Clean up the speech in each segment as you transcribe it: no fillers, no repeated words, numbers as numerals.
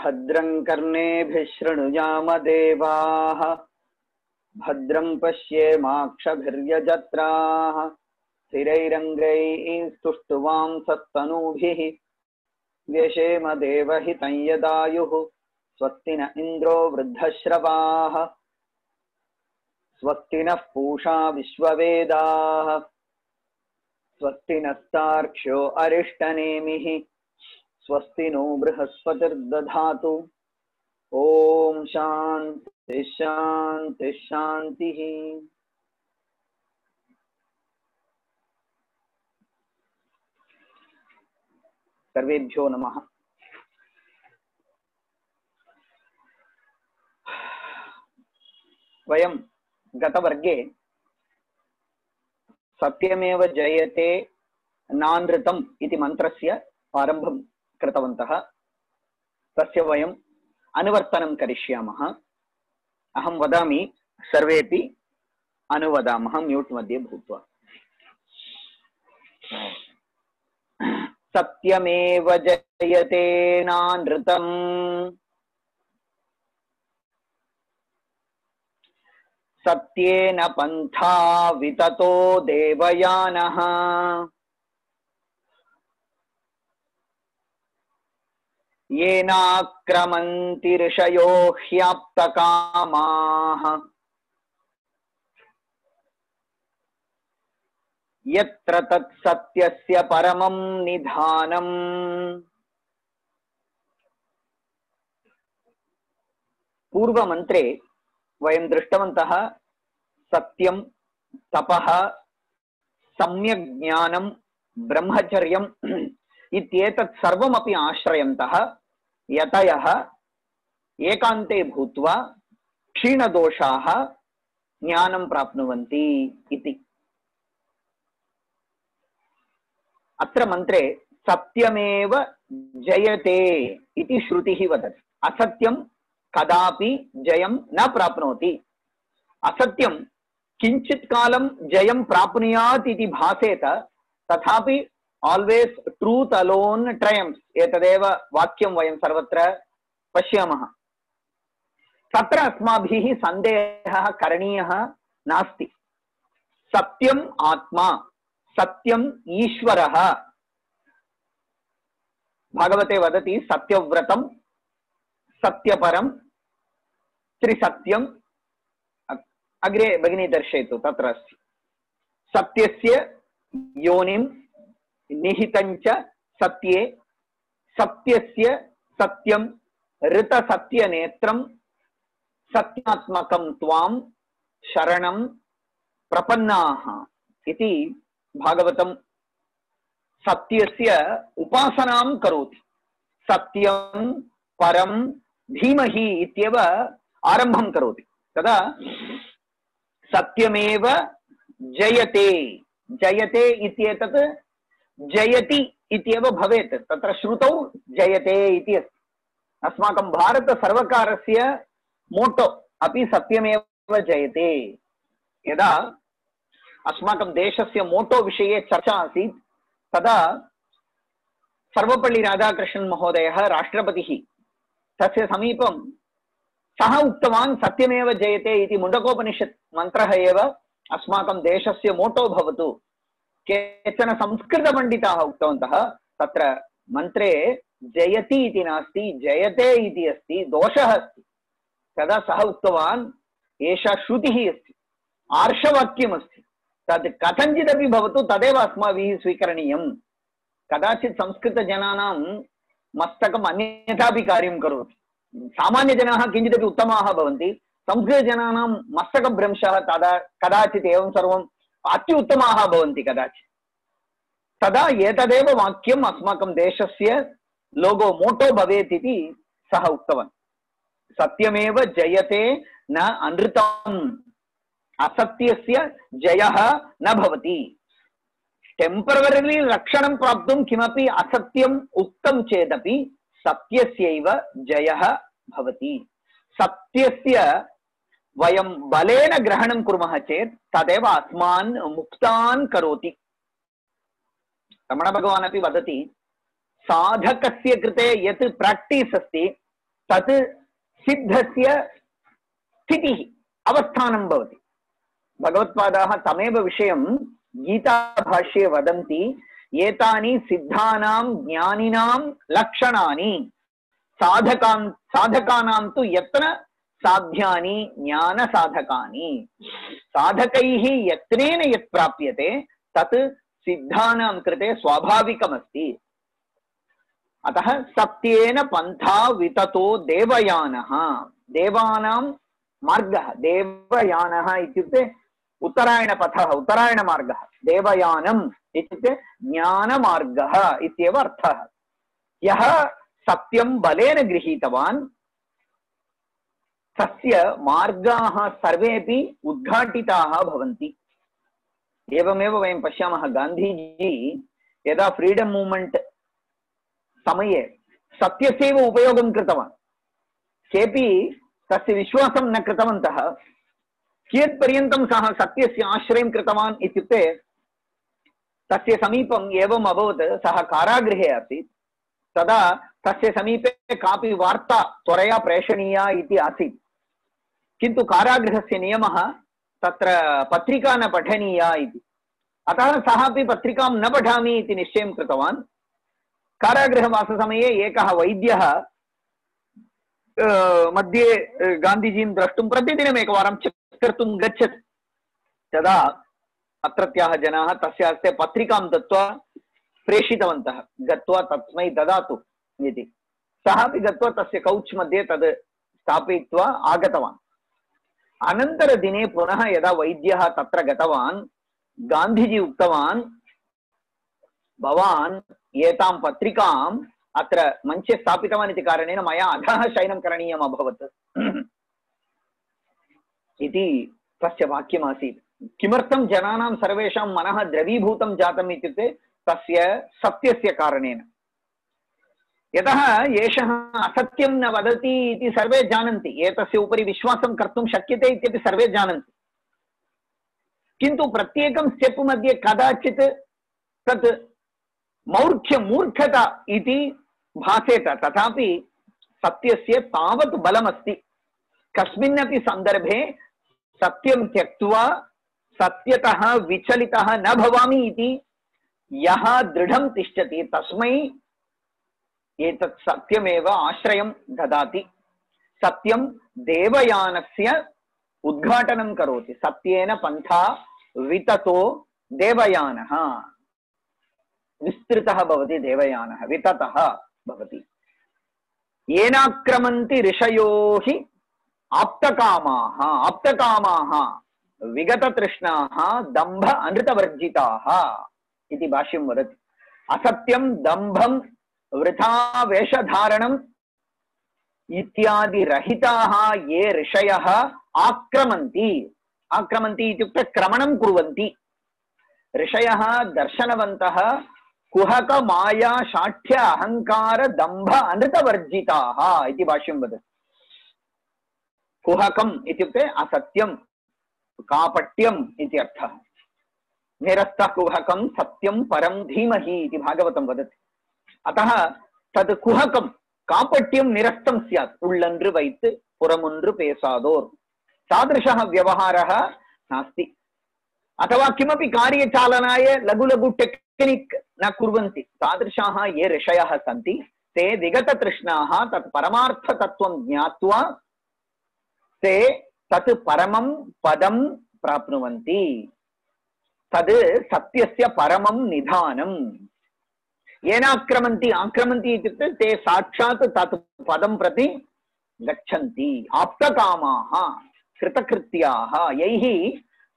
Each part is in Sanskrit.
भद्रं कर्णेभिः शृणुयाम देवाः भद्रं पश्येमाक्षभिर्यजत्राः स्थिरैरङ्गैः स्तुष्टुवांसस्तनूभिः व्यशेम देवहितं यदायुः स्वस्ति न इन्द्रो वृद्धश्रवाः स्वस्ति नः पूषा विश्ववेदाः स्वस्ति नस्तार्क्ष्यो अरिष्टनेमिः स्वस्ति नो बृहस्पतिर्दधातु ओम शांति शांति शांति। सर्वेभ्यो नमः। वयं गतवर्गे सत्यमेव जयते नानृतम् इति मन्त्रस्य आरम्भं कृतवन्तः। तस्य वयम् अनुवर्तनं करिष्यामः। अहं वदामि, सर्वेपि अनुवदामः म्यूट् मध्ये भूत्वा। सत्यमेव जयते नानृतम् सत्येन पन्था विततो देवयानः येनाक्रमन्ति ऋषयो ह्याप्तकामाः यत्र तत्सत्यस्य परमं निधानम्। पूर्वमन्त्रे वयं दृष्टवन्तः सत्यं, तपः, सम्यक् ज्ञानं, ब्रह्मचर्यम् इत्येतत् सर्वमपि आश्रयन्तः यतयः एकान्ते भूत्वा क्षीणदोषाः ज्ञानं प्राप्नुवन्ति इति। अत्र मन्त्रे सत्यमेव जयते इति श्रुतिः वदति। असत्यं कदापि जयं न प्राप्नोति। असत्यं किञ्चित् कालं जयं प्राप्नुयात् इति भासेत, तथापि always truth alone triumphs एतदेव वाक्यं वयं सर्वत्र पश्यामः। तत्र अस्माभिः सन्देहः करणीयः नास्ति। सत्यम् आत्मा, सत्यम् ईश्वरः। भागवते वदति सत्यव्रतं सत्यपरं त्रिसत्यम्। अग्रे भगिनी दर्शयतु, तत्र अस्ति। सत्यस्य योनिं निहितञ्च सत्ये सत्यस्य सत्यं ऋतसत्यनेत्रं सत्यात्मकं त्वां शरणं प्रपन्नाः इति भागवतं सत्यस्य उपासनां करोति। सत्यं परं धीमहि इत्येव आरम्भं करोति। तदा सत्यमेव जयते, जयते इत्येतत् जयति इत्येव भवेत्। तत्र श्रुतौ जयते इति अस्ति। अस्माकं भारतसर्वकारस्य मोटो अपि सत्यमेव जयते। यदा अस्माकं देशस्य मोटो विषये चर्चा आसीत्, तदा सर्वपल्ली राधाकृष्णन् महोदयः राष्ट्रपतिः तस्य समीपं सः उक्तवान् सत्यमेव जयते इति मुण्डकोपनिषत् मन्त्रः एव अस्माकं देशस्य मोटो भवतु। केचन संस्कृतपण्डिताः उक्तवन्तः तत्र मन्त्रे जयति इति नास्ति, जयते इति अस्ति, दोषः अस्ति। तदा सः उक्तवान् एषा श्रुतिः अस्ति, आर्षवाक्यमस्ति, तद् कथञ्चिदपि भवतु तदेव अस्माभिः स्वीकरणीयं। कदाचित् संस्कृतजनानां मस्तकम् अन्यथापि कार्यं करोति। सामान्यजनाः किञ्चिदपि उत्तमाः भवन्ति, संस्कृतजनानां मस्तकभ्रंशः तदा कदाचित् एवं सर्वम् अत्युत्तमाः भवन्ति कदाचित्। तदा एतदेव वाक्यम् अस्माकं देशस्य लोगो मोटो भवेत् इति सः उक्तवान्। सत्यमेव जयते न अनृतम्। असत्यस्य जयः न भवति। टेम्परवरिली रक्षणं प्राप्तुं किमपि असत्यम् उक्तं चेदपि सत्यस्यैव जयः भवति। सत्यस्य वयं बलेन ग्रहणं कुर्मः चेत् तदेव अस्मान् मुक्तान् करोति। रमण भगवान् अपि वदति, साधकस्य कृते यत् प्राक्टीस् अस्ति तत् सिद्धस्य स्थितिः अवस्थानं भवति। भगवत्पादाः तमेव विषयं गीताभाष्ये वदन्ति, एतानि सिद्धानां ज्ञानिनां लक्षणानि साधकानां तु यत्न साध्यानि ज्ञान साधकानि। साधकैः यत्नेन यत् प्राप्यते तत् सिद्धानां कृते स्वाभाविकमस्ति। अतः सत्येन पन्था विततो देवयानः, देवानां मार्गः, देवयानः इत्युक्ते उत्तरायणपथः, उत्तरायणमार्गः, देवयानम् इत्युक्ते ज्ञानमार्गः इत्येव अर्थः। यः सत्यं बलेन गृहीतवान् तस्य मार्गाः सर्वेपि उद्घाटिताः भवन्ति। एवमेव वयं पश्यामः, गान्धीजी यदा फ्रीडम मूवमेंट समये सत्यस्यैव उपयोगं कृतवान्, केपि तस्य विश्वासं न कृतवन्तः। कियत्पर्यन्तं सः सत्यस्य आश्रयं कृतवान् इत्युक्ते तस्य समीपम् एवम् अभवत्, सः कारागृहे आसीत्, तदा तस्य समीपे कापि वार्ता त्वरया प्रेषणीया इति आसीत्, किन्तु कारागृहस्य नियमः तत्र पत्रिका न पठनीया इति। अतः सः अपि पत्रिकां न पठामि इति निश्चयं कृतवान्। कारागृहवाससमये एकः वैद्यः मध्ये गान्धीजीं द्रष्टुं प्रतिदिनम् एकवारं चेक् कर्तुं गच्छति। तदा अत्रत्याः जनाः तस्य हस्ते पत्रिकां दत्त्वा प्रेषितवन्तः, गत्वा तस्मै ददातु इति। सः अपि गत्वा तस्य कौच् मध्ये तद् स्थापयित्वा आगतवान्। अनन्तरदिने पुनः यदा वैद्यः तत्र गतवान्, गान्धीजी उक्तवान्, भवान् एतां पत्रिकाम् अत्र मञ्चे स्थापितवान् इति कारणेन मया अधः शयनं करणीयम् अभवत् इति तस्य वाक्यमासीत्। किमर्थं जनानां सर्वेषां मनः द्रवीभूतं जातम् इत्युक्ते तस्य सत्यस्य कारणेन। यतः एषः असत्यं न वदति इति सर्वे जानन्ति, एतस्य उपरि विश्वासं कर्तुं शक्यते इत्यपि सर्वे जानन्ति, किन्तु प्रत्येकं स्टेप् मध्ये कदाचित् तत् मूर्खता इति भासेत। तथापि सत्यस्य तावत् बलमस्ति। कस्मिन्नपि सन्दर्भे सत्यं त्यक्त्वा सत्यतः विचलितः न भवामि इति यः दृढं तिष्ठति तस्मै एतत् सत्यमेव आश्रयं ददाति। सत्यं देवयानस्य उद्घाटनं करोति। सत्येन पन्था विततो देवयानः, विस्तृतः भवति देवयानः, विततः भवति। येनाक्रमन्ति ऋषयो हि आप्तकामाः, आप्तकामाः विगततृष्णाः दम्भ अनृतवर्जिताः इति भाष्यं वदति। असत्यं दम्भं वृथा वेषधारणम् इत्यादि रहिताः ये ऋषयः आक्रमन्ति, आक्रमन्ति इत्युक्ते क्रमणं कुर्वन्ति। ऋषयः दर्शनवन्तः कुहक माया शाठ्य अहंकार दम्भ अनृतवर्जिताः इति भाष्यं वदति। कुहकम् इत्युक्ते असत्यं, कापट्यम् इति अर्थः। निरस्तः कुहकं सत्यं परं धीमहि इति भागवतं वदति। अतः तद् कुहकं कापट्यं निरस्तं स्यात्, उल्लन्रु वैत् पुरमुन्रु पेसादोर्, तादृशः व्यवहारः नास्ति। अथवा किमपि कार्यचालनाय लघु लघु टेक्निक् न कुर्वन्ति। तादृशाः ये ऋषयः सन्ति ते विगततृष्णाः तत् परमार्थतत्त्वं ज्ञात्वा ते तत् परमं पदं प्राप्नुवन्ति। तद् सत्यस्य परमं निधानम्। येनाक्रमन्ति, आक्रमन्ति इत्युक्ते ते साक्षात् तत् पदं प्रति गच्छन्ति। आप्तकामाः कृतकृत्याः, यैः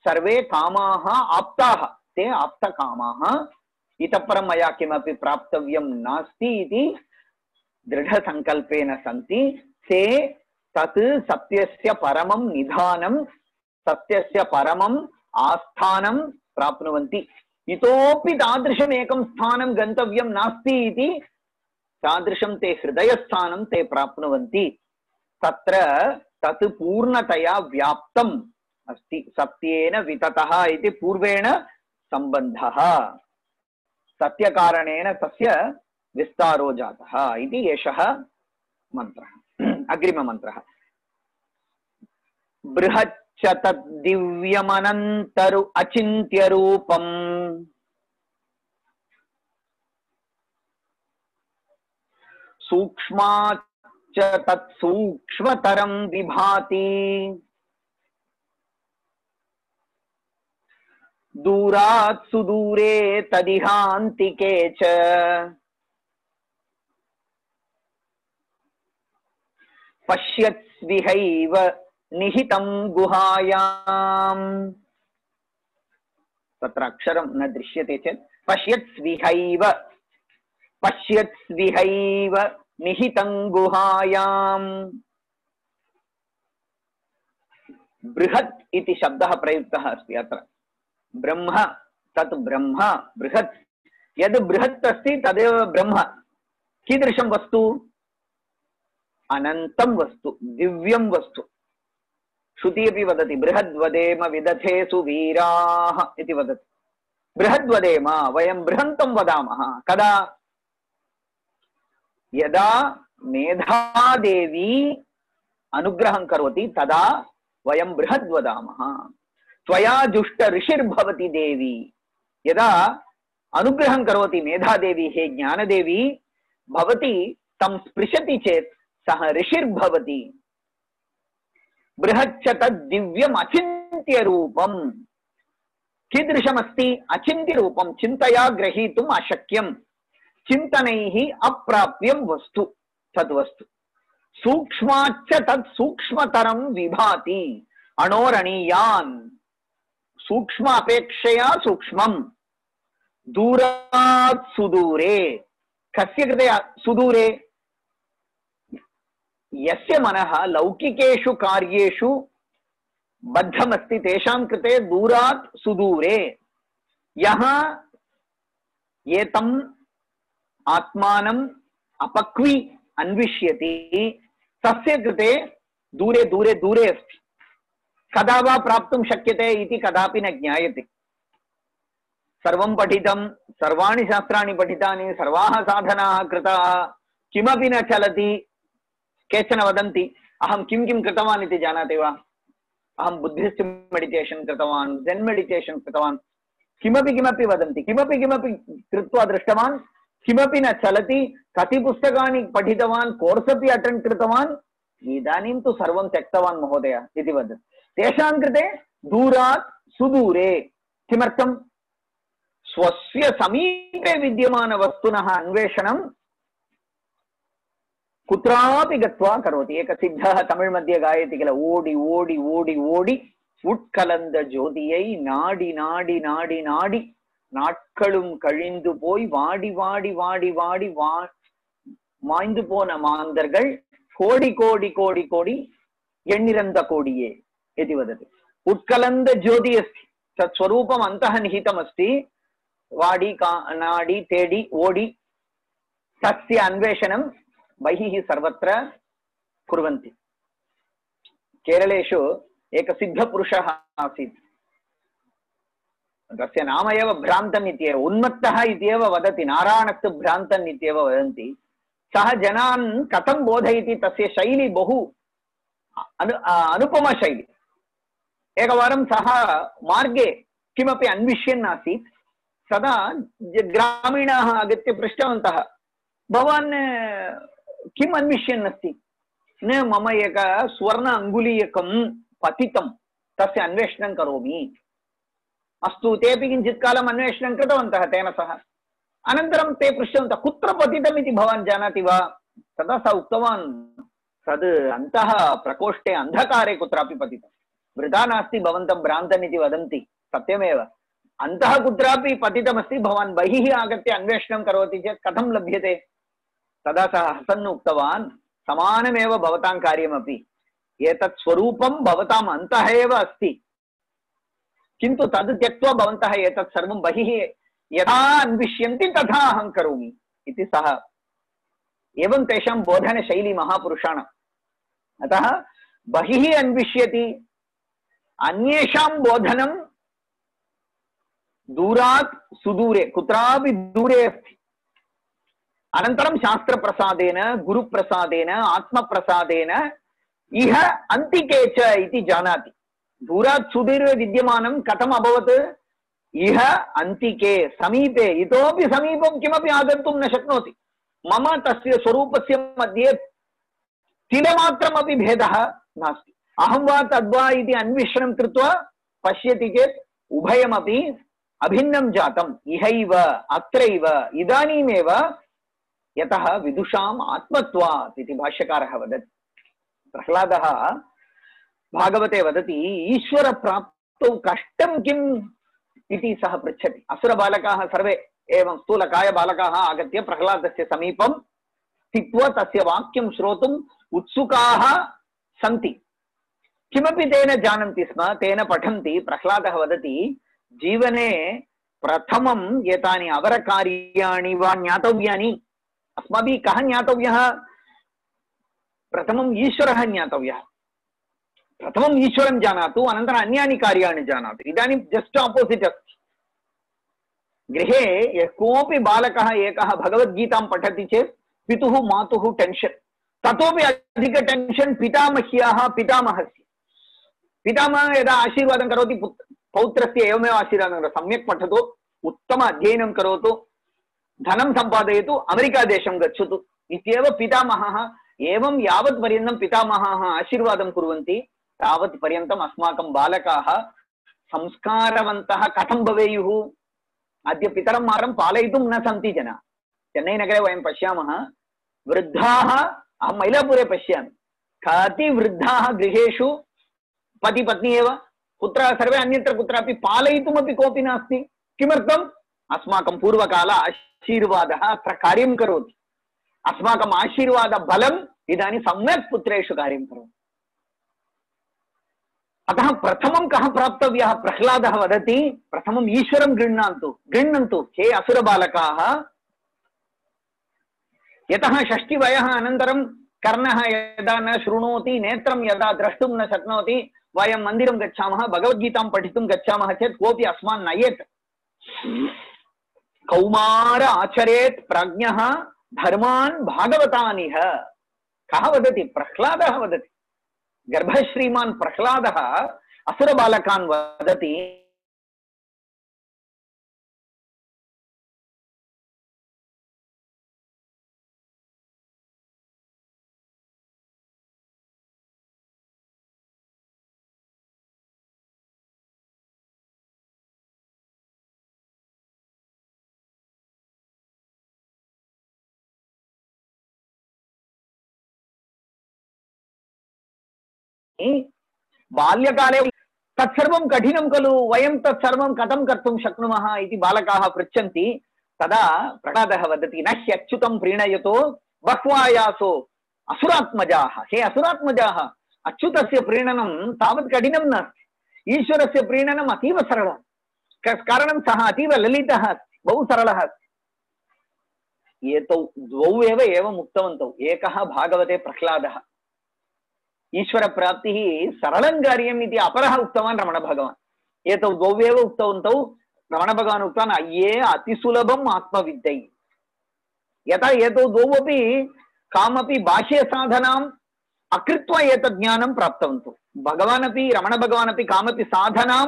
सर्वे कामाः आप्ताः, ते आप्तकामाः। इतः परं मया किमपि प्राप्तव्यं नास्ति इति दृढसङ्कल्पेन सन्ति। ते तत् सत्यस्य परमं निधानं, सत्यस्य परमं आस्थानं प्राप्नुवन्ति। इतोपि तादृशम् एकं स्थानं गन्तव्यं नास्ति इति तादृशं ते हृदयस्थानं ते प्राप्नुवन्ति। तत्र तत् पूर्णतया व्याप्तम् अस्ति। सत्येन विततः इति पूर्वेण सम्बन्धः, सत्यकारणेन तस्य विस्तारो जातः इति एषः मन्त्रः। अग्रिममन्त्रः बृहच्च तद्दिव्यमनन्तरु अचिन्त्यरूपम् सूक्ष्माच्च तत्सूक्ष्मतरं विभाति दूरात् सुदूरे तदिहान्तिके च पश्यत्स्विहैव निहितं गुहायाम् तत्र अक्षरं न दृश्यते चेत् पश्यत्स्विहैव निहितं गुहायाम् बृहत् इति शब्दः प्रयुक्तः अस्ति अत्र ब्रह्म तत् ब्रह्म बृहत् यद् बृहत् अस्ति तदेव ब्रह्म कीदृशं वस्तु अनन्तं वस्तु दिव्यं वस्तु श्रुति अपि वदति बृहद्वदेम विदथेषु वीराः इति वदति बृहद्वदेम वयं बृहन्तं वदामः कदा यदा मेधादेवी अनुग्रहं करोति तदा वयं बृहद् वदामः त्वया जुष्ट ऋषिर्भवति देवी यदा अनुग्रहं करोति मेधादेवी हे ज्ञानदेवी भवती तं स्पृशति चेत् सः ऋषिर्भवति बृहच्च तद्दिव्यम् अचिन्त्य रूपम् कीदृशमस्ति अचिन्त्य रूपं चिन्तया ग्रहीतुम् अशक्यं चिन्तनैः अप्राप्यं वस्तु तद्वस्तु सूक्ष्माच्च तत् सूक्ष्मतरं विभाति अणोरणीयान् सूक्ष्म अपेक्षया सूक्ष्मं दूरात् सुदूरे कस्य कृते सुदूरे यस्य मनः लौकिकेषु कार्येषु बद्धमस्ति तेषां कृते दूरात् सुदूरे यः एतम् आत्मानम् अपक्वी अन्विष्यति तस्य कृते दूरे दूरे दूरे अस्ति कदा वा प्राप्तुं शक्यते इति कदापि न ज्ञायते सर्वं पठितं सर्वाणि शास्त्राणि पठितानि सर्वाः साधनाः कृताः किमपि न चलति केचन वदन्ति अहं किं किं कृतवान् इति जानाति वा अहं बुद्धिस्ट् मेडिटेशन् कृतवान् ज़ेन् मेडिटेशन् कृतवान् किमपि किमपि वदन्ति किमपि किमपि कृत्वा दृष्टवान् किमपि न चलति कति पुस्तकानि पठितवान् कोर्स् अपि अटेण्ड् कृतवान् इदानीं तु सर्वं त्यक्तवान् महोदय इति वदति तेषां कृते दूरात् सुदूरे किमर्थं स्वस्य समीपे विद्यमानवस्तुनः अन्वेषणं कुत्रापि गत्वा करोति एक सिद्धः तमिळ् मध्ये गायति किल ओडि ओडि ओडि ओडि उट्कलந்த ஜோதியை நாடி நாடி நாடி நாடி நாட்களும் கழிந்து போய் வாடி வாடி வாடி வாடி மாய்ந்து போன மாந்தர்கள் கோடி கோடி கோடி கோடி எண்ணிறந்த கோடியே इति वदति उत्कलन्द ज्योति अस्ति तत् स्वरूपम् अन्तः निहितमस्ति वाडी नाडी तेडी ओडी तस्य अन्वेषणं बहिः सर्वत्र कुर्वन्ति केरलेषु एक सिद्धपुरुषः आसीत् तस्य नाम एव भ्रान्तन् इत्येव उन्मत्तः इत्येव वदति नारायणस्तु भ्रान्तन् इत्येव वदन्ति सः जनान् कथं बोधयति तस्य शैली बहु अनुपमा शैली एकवारं सः मार्गे किमपि अन्विष्यन् आसीत् तदा ग्रामीणाः आगत्य पृष्टवन्तः भवान् किम् अन्विष्यन् अस्ति न मम एक स्वर्ण अङ्गुलीयकं पतितं तस्य अन्वेषणं करोमि अस्तु तेपि किञ्चित् कालम् अन्वेषणं कृतवन्तः तेन सह अनन्तरं ते पृष्टवन्तः कुत्र पतितम् इति भवान् जानाति वा तदा सः उक्तवान् तद् अन्तः प्रकोष्ठे अन्धकारे कुत्रापि पतितं वृथा नास्ति भवन्तं भ्रान्तन् इति वदन्ति सत्यमेव अन्तः कुत्रापि पतितमस्ति भवान् बहिः आगत्य अन्वेषणं करोति चेत् कथं लभ्यते तदा सः हसन् उक्तवान् समानमेव भवतां कार्यमपि एतत् स्वरूपं भवताम् अन्तः एव अस्ति किन्तु तद् त्यक्त्वा भवन्तः एतत् सर्वं बहिः यथा अन्विष्यन्ति तथा अहं करोमि इति सः एवं तेषां बोधनशैली महापुरुषाणाम् अतः बहिः अन्विष्यति अन्येषां बोधनं दूरात् सुदूरे कुत्रापि दूरे अस्ति अनन्तरं शास्त्रप्रसादेन गुरुप्रसादेन आत्मप्रसादेन इह अन्तिके च इति जानाति। दूरात् सुदूरे विद्यमानं कथम् अभवत्? इह अन्तिके समीपे, इतोपि समीपं किमपि आगन्तुं न शक्नोति। मम तस्य स्वरूपस्य मध्ये तिलमात्रमपि भेदः नास्ति। अहं वा तद्वा इति अन्वेषणं कृत्वा पश्यति चेत् उभयमपि अभिन्नं जातम्। इहैव अत्रैव इदानीमेव, यतः विदुषाम् आत्मत्वात् इति भाष्यकारः वदति। प्रह्लादः भागवते वदति, ईश्वर प्राप्तौ कष्टं किम् इति सः पृच्छति। असुरबालकाः सर्वे एवं स्थूलकाय बालकाः आगत्य प्रह्लादस्य समीपं स्थित्वा तस्य वाक्यं श्रोतुम् उत्सुकाः सन्ति। किमपि तेन जानन्ति स्म, तेन पठन्ति। प्रह्लादः वदति, जीवने प्रथमं एतानि अवरकार्याणि वा ज्ञातव्यानि। अस्माभिः कः ज्ञातव्यः? प्रथमम् ईश्वरः ज्ञातव्यः। प्रथमम् ईश्वरं जानातु, अनन्तरम् अन्यानि कार्याणि जानातु। इदानीं जस्ट् आपोसिट् अस्ति। गृहे यः कोऽपि बालकः एकः भगवद्गीतां पठति चेत् पितुः मातुः टेन्शन्, ततोपि अधिक टेन्शन् पितामह्याः पितामहस्य। पितामहः यदा आशीर्वादं करोति पौत्रस्य एवमेव आशीर्वादं करोति, सम्यक् पठतु, उत्तम अध्ययनं करोतु, धनं सम्पादयतु, अमेरिका देशं गच्छतु इत्येव पितामहः। एवं यावत् पर्यन्तं पितामहः आशीर्वादं कुर्वन्ति तावत् पर्यन्तम् अस्माकं बालकाः संस्कारवन्तः कथं भवेयुः? अद्य पितरं मारं पालयितुं न सन्ति जनाः। चेन्नैनगरे वयं पश्यामः, वृद्धाः, अहं मैलापुरे पश्यामि, कति वृद्धाः गृहेषु पति पत्नी एव, पुत्राः सर्वे अन्यत्र कुत्रापि, पालयितुमपि कोऽपि नास्ति। किमर्थम्? अस्माकं पूर्वकाल आशीर्वादः अत्र कार्यं करोति। अस्माकम् आशीर्वादबलम् इदानीं सम्यक् पुत्रेषु कार्यं करोति। अतः प्रथमं कः प्राप्तव्यः? प्रह्लादः वदति, प्रथमम् ईश्वरं गृह्णन्तु हे असुरबालकाः। यतः षष्टिवयः अनन्तरं कर्णः यदा न शृणोति, नेत्रं यदा द्रष्टुं न शक्नोति, वयं मन्दिरं गच्छामः, भगवद्गीतां पठितुं गच्छामः चेत् कोऽपि अस्मान् नयेत्। कौमार आचरेत् प्राज्ञः धर्मान् भागवतानिह। कः वदति? प्रह्लादः वदति। गर्भश्रीमान् प्रह्लादः असुरबालकान् वदति, बाल्यकाले तत्सर्वं कठिनं खलु, वयं तत्सर्वं कथं कर्तुं शक्नुमः इति बालकाः पृच्छन्ति। तदा प्रह्लादः वदति, न ह्यच्युतं प्रीणयतो बह्वायासो असुरात्मजाः। हे असुरात्मजाः, अच्युतस्य प्रीणनं तावत् कठिनं नास्ति, ईश्वरस्य प्रीणनम् अतीव सरलः। कारणं सः अतीव ललितः अस्ति, बहु सरलः अस्ति। एतौ द्वौ एव एवम् उक्तवन्तौ। एकः भागवते प्रह्लादः, ईश्वर प्राप्तिः सरलं कार्यम् इति अपरः उक्तवान् रमणभगवान्। एतौ द्वौ एव उक्तवन्तौ। रमणभगवान् उक्तवान्, अय्ये अतिसुलभम् आत्मविद्यै। यथा एतौ द्वौ अपि कामपि बाह्यसाधनाम् अकृत्वा एतत् ज्ञानं प्राप्तवन्तौ। भगवान् अपि रमणभगवान् अपि कामपि साधनां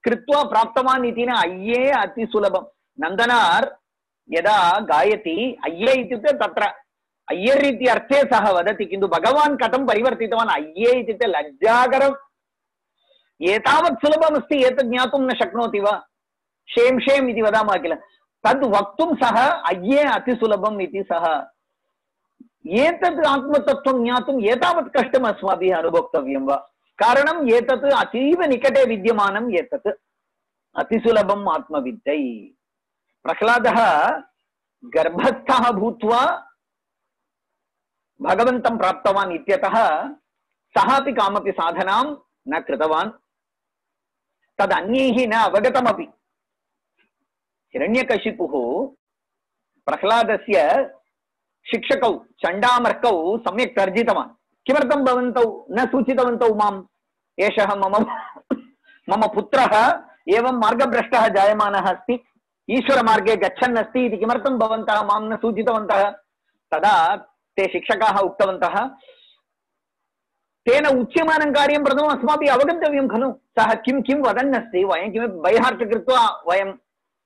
कृत्वा प्राप्तवान् इति न। अय्ये अतिसुलभम्। नन्दनार् यदा गायति, अय्ये इत्युक्ते तत्र अय्यर् इति अर्थे सः वदति, किन्तु भगवान् कथं परिवर्तितवान्? अय्ये इत्युक्ते लज्जाकरम्, एतावत् सुलभमस्ति, एतत् ज्ञातुं न शक्नोति वा? शेम् शेम् इति वदामः किल, तद् वक्तुं सः अय्ये अतिसुलभम् इति सः। एतत् आत्मतत्त्वं ज्ञातुम् एतावत् कष्टम् अस्माभिः अनुभोक्तव्यं वा? कारणम् एतत् अतीव निकटे विद्यमानम्, एतत् अतिसुलभम् आत्मविद्यै। प्रह्लादः गर्भस्थः भूत्वा भगवन्तं प्राप्तवान् इत्यतः सः अपि कामपि साधनां न कृतवान्, तदन्यैः न अवगतमपि। हिरण्यकशिपुः प्रह्लादस्य शिक्षकौ चण्डामर्कौ सम्यक् तर्जितवान्। किमर्थं भवन्तौ न सूचितवन्तौ माम्? एषः मम पुत्रः एवं मार्गभ्रष्टः जायमानः अस्ति, ईश्वरमार्गे गच्छन् अस्ति इति किमर्थं भवन्तः मां न सूचितवन्तः? तदा ते शिक्षकाः उक्तवन्तः तेन उच्यमानं कार्यं प्रथमम् अस्माभिः अवगन्तव्यं खलु सः किं किं वदन् अस्ति वयं किमपि बैहार्ट् कृत्वा वयम्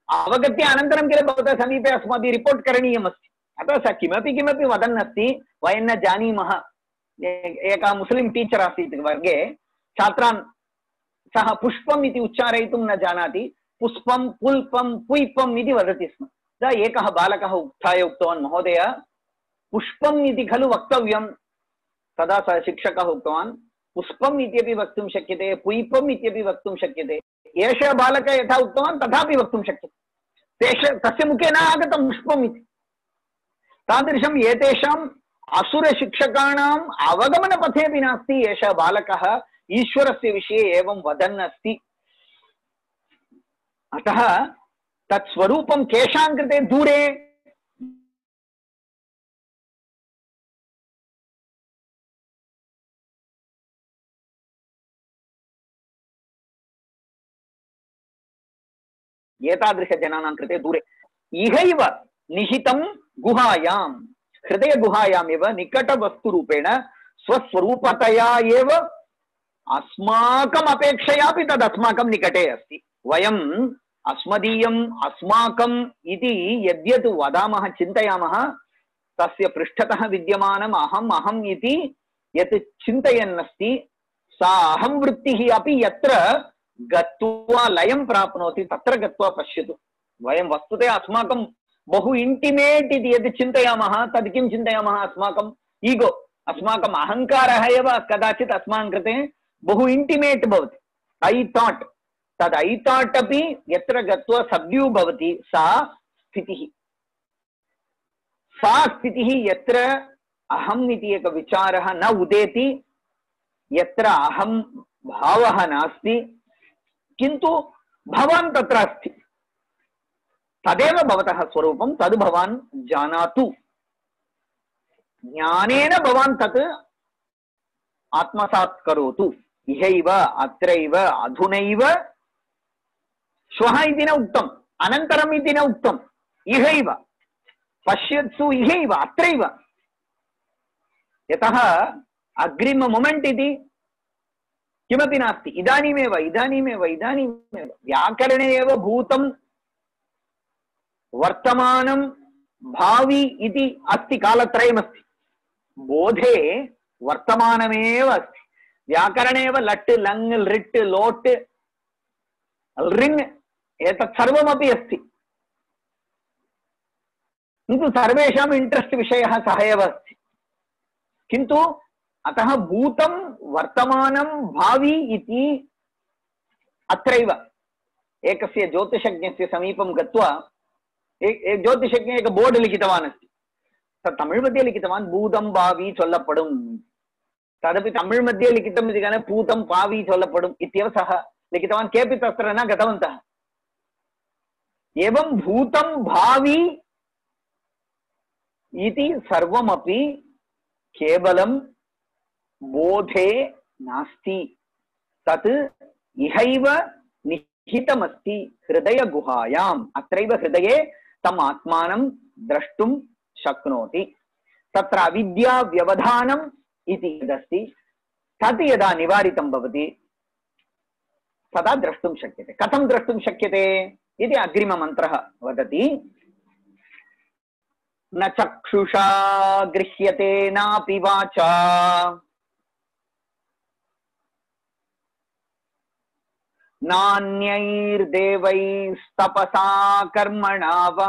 अवगत्य अनन्तरं किल भवतः समीपे अस्माभिः रिपोर्ट् करणीयम् अस्ति अतः सः किमपि किमपि वदन् अस्ति वयं न जानीमः एकः मुस्लिं टीचर् आसीत् वर्गे छात्रान् सः पुष्पम् इति उच्चारयितुं न जानाति पुष्पं पुल्पं पुष्पम् इति वदति स्म तदा एकः बालकः उत्थाय उक्तवान् महोदय पुष्पम् इति खलु वक्तव्यं तदा सः शिक्षकः उक्तवान् पुष्पम् इत्यपि वक्तुं शक्यते पुष्पम् इत्यपि वक्तुं शक्यते एषः बालकः यथा उक्तवान् तथापि वक्तुं शक्यते तस्य मुखे न आगतं पुष्पम् इति तादृशम् एतेषाम् असुरशिक्षकाणाम् अवगमनपथे अपि नास्ति एषः बालकः ईश्वरस्य विषये एवं वदन् अस्ति अतः तत् स्वरूपं केषां कृते दूरे एतादृशजनानां कृते दूरे इहैव निहितं गुहायां हृदयगुहायामेव निकटवस्तुरूपेण स्वस्वरूपतया एव अस्माकम् अपेक्षयापि तद् अस्माकं निकटे अस्ति वयम् अस्मदीयम् अस्माकम् इति यद्यत् वदामः चिन्तयामः तस्य पृष्ठतः विद्यमानम् अहम् अहम् इति यत् चिन्तयन् अस्ति सा अहं वृत्तिः अपि यत्र गत्वा लयं प्राप्नोति तत्र गत्वा पश्यतु वयं वस्तुतः अस्माकं बहु इंटिमेट इति यद् चिन्तयामः तद् किं चिन्तयामः अस्माकं ईगो अस्माकम् अहङ्कारः एव कदाचित् अस्माकं कृते बहु इंटिमेट भवति ऐ थाट् तद् ऐ थाट् अपि यत्र गत्वा सब्ड्यू भवति सा स्थितिः यत्र अहम् इति एकः विचारः न उदेति यत्र अहं भावः नास्ति किन्तु भवान् तत्र अस्ति तदेव भवतः स्वरूपं तद् भवान् जानातु ज्ञानेन भवान् तत् आत्मसात् करोतु इहैव अत्रैव अधुनैव श्वः इति न उक्तम् अनन्तरम् इति न उक्तम् इहैव पश्यत्सु इहैव अत्रैव यतः अग्रिम मोमेंट इति किमपि नास्ति इदानीमेव इदानीमेव इदानीमेव व्याकरणे एव भूतं वर्तमानं भावी इति अस्ति कालत्रयमस्ति बोधे वर्तमानमेव अस्ति व्याकरणे एव लट् लङ् लिट् लोट् ऋङ् एतत् सर्वमपि अस्ति किन्तु सर्वेषाम् इण्ट्रेस्ट् विषयः सः एव अस्ति किन्तु अतः भूतं वर्तमानं भावी इति अत्रैव एकस्य ज्योतिषज्ञस्य समीपं गत्वा एक ज्योतिषज्ञ एक बोर्ड लिखितवान् अस्ति तत् तमिळ् मध्ये लिखितवान् भूतं भावी सोल्लप्पडुम् तदपि तमिळ् मध्ये लिखितम् इति कारणेन भूतं भावी सोल्लप्पडुम् इत्येव सः लिखितवान् केऽपि तत्र न गतवन्तः एवं भूतं भावी इति सर्वमपि केवलं बोधे नास्ति तत् इहैव निहितमस्ति हृदयगुहायाम् अत्रैव हृदये तम् आत्मानं द्रष्टुं शक्नोति तत्र अविद्या व्यवधानम् इति यदस्ति तत् यदा निवारितं भवति तदा द्रष्टुं शक्यते कथं द्रष्टुं शक्यते इति अग्रिममन्त्रः वदति न चक्षुषा गृह्यते नापि वाचा नान्यैर्देवैस्तपसा कर्मणा वा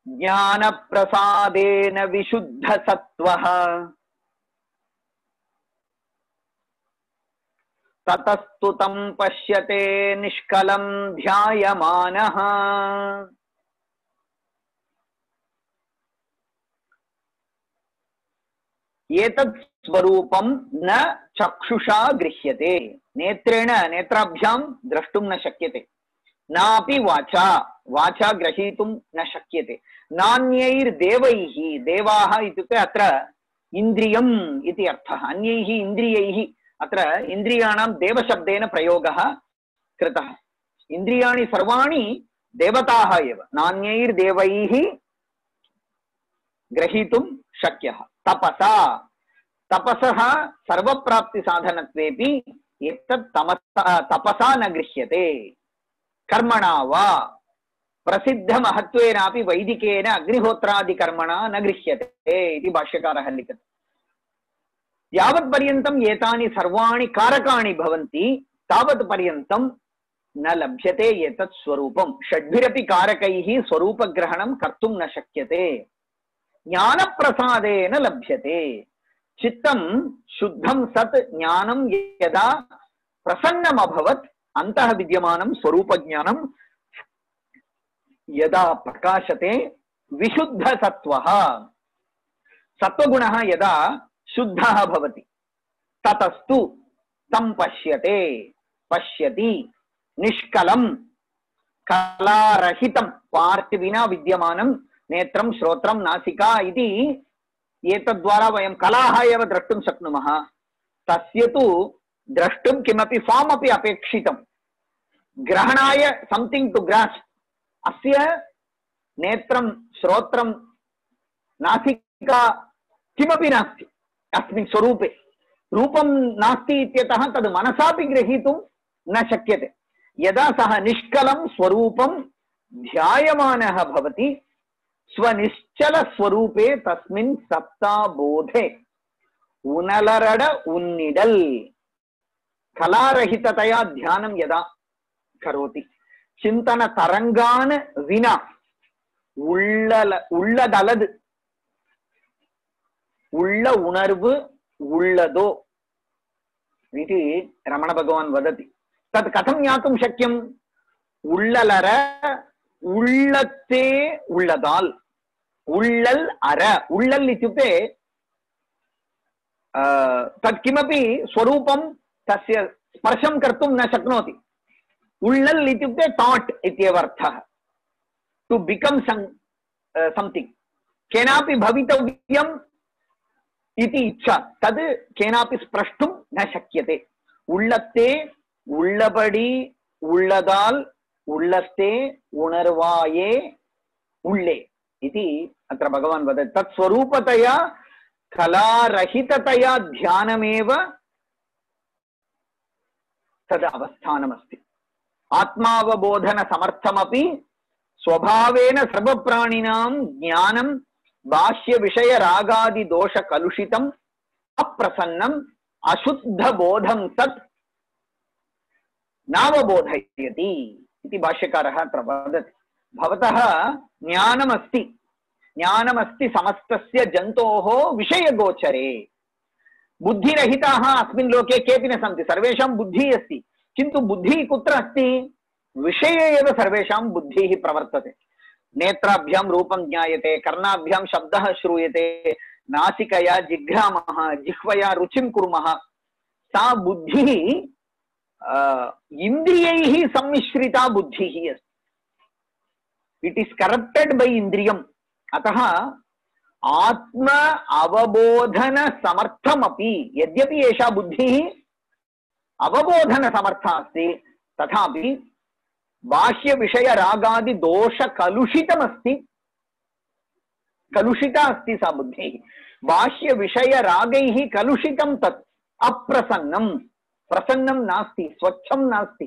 ज्ञानप्रसादेन विशुद्धसत्त्वः ततस्तु तं पश्यते निष्कलं ध्यायमानः एतत् स्वरूपं न चक्षुषा गृह्यते नेत्रेण नेत्राभ्यां द्रष्टुं न शक्यते नापि वाचा वाचा ग्रहीतुं न शक्यते नान्यैर्देवैः देवाः इत्युक्ते अत्र इन्द्रियम् इति अर्थः अन्यैः इन्द्रियैः अत्र इन्द्रियाणां देवशब्देन प्रयोगः कृतः इन्द्रियाणि सर्वाणि देवताः एव, नान्यैर्देवैः ग्रहीतुं शक्यः। तपसा, तपसः सर्वप्राप्तिसाधनत्वेपि एतत् तपसा न गृह्यते। कर्मणा वा प्रसिद्धमहत्वेनापि वैदिकेन अग्निहोत्रादिकर्मणा न गृह्यते इति भाष्यकारः लिखति। यावत्पर्यन्तम् एतानि सर्वाणि कारकाणि भवन्ति तावत् पर्यन्तं न लभ्यते एतत् स्वरूपं। षड्भिरपि कारकैः स्वरूपग्रहणं कर्तुं न शक्यते, ज्ञानप्रसादेन लभ्यते। चित्तं शुद्धं सत् ज्ञानं यदा प्रसन्नम् अभवत् अन्तः विद्यमानं स्वरूपज्ञानं यदा प्रकाशते विशुद्धसत्त्वः, सत्त्वगुणः यदा शुद्धः भवति ततस्तु तं पश्यते, पश्यति निष्कलं कलारहितं, पार्ट् विना विद्यमानं नेत्रं श्रोत्रं नासिका इति एतद्वारा वयं कलाः एव द्रष्टुं शक्नुमः। तस्य तु द्रष्टुं किमपि फार्म् अपि अपेक्षितं, ग्रहणाय सम्थिङ्ग् टु ग्रास्प। अस्य नेत्रं श्रोत्रं नासिका किमपि नास्ति अस्मिन् स्वरूपे, रूपं नास्ति इत्यतः तद् मनसापि ग्रहीतुं न शक्यते। यदा सः निष्कलं स्वरूपं ध्यायमानः भवति स्वनिश्चल स्वरूपे तस्मिन् सत्ताबोधे उनलरड उन्निडल कलारहिततया ध्यानं यदा करोति, चिंतन तरंगान विना உள்ளதலது उள்ள उणर्वु उಳ್ಳदो इति रमण भगवान् वदति। तत् कथं ज्ञातुं शक्यम्? उಳ್ಳलर उಳ್ಳते उಳ್ಳदाल्, उಳ್ಳल् अर, उಳ್ಳल् इत्युक्ते तत् किमपि स्वरूपं तस्य स्पर्शं कर्तुं न शक्नोति। उಳ್ಳल् इत्युक्ते थाट् इत्येव अर्थः, टु बिकम् समथिङ्ग्, केनापि भवितव्यम् इति इच्छा, तद् केनापि स्प्रष्टुं न शक्यते। उಳ್ಳत्ते उಳ್ಳबडी उಳ್ಳदाल् उಳ್ಳस्ते उणर्वाये उल्ले इति अत्र भगवान् वदति। तत् स्वरूपतया कलारहिततया ध्यानमेव तद् अवस्थानमस्ति। आत्मावबोधन समर्थमपि स्वभावेन सर्वप्राणिनां ज्ञानं बाह्य विषय रागादि दोष कलुषितम् अप्रसन्नम् अशुद्ध बोधं सत् नावबोधयति इति भाष्यकारः अत्र वदति। भवतः ज्ञानमस्ति, ज्ञानमस्ति समस्तस्य जन्तोः विषयगोचरे। बुद्धिरहिताः अस्मिन् लोके केऽपि न सन्ति, सर्वेषां बुद्धिः अस्ति, किन्तु बुद्धिः कुत्र अस्ति? विषये एव सर्वेषां बुद्धिः प्रवर्तते। नेत्राभ्यां रूपं ज्ञायते, कर्णाभ्यां शब्दः श्रूयते, नासिकया जिघ्रामः, जिह्वया रुचिं कुर्मः। सा बुद्धिः इन्द्रियैः सम्मिश्रिता बुद्धिः अस्ति। इट् इस् करप्टेड् बै इन्द्रियम्। अतः आत्म अवबोधन समर्थमपि, यद्यपि एषा बुद्धिः अवबोधन समर्था अस्ति, तथापि बाह्य विषय रागादि दोष कलुषितमस्ति, कलुषिता अस्ति सा बुद्धिः। बाह्य विषय रागैः कलुषितं तत् अप्रसन्नं, प्रसन्नं नास्ति, स्वच्छं नास्ति।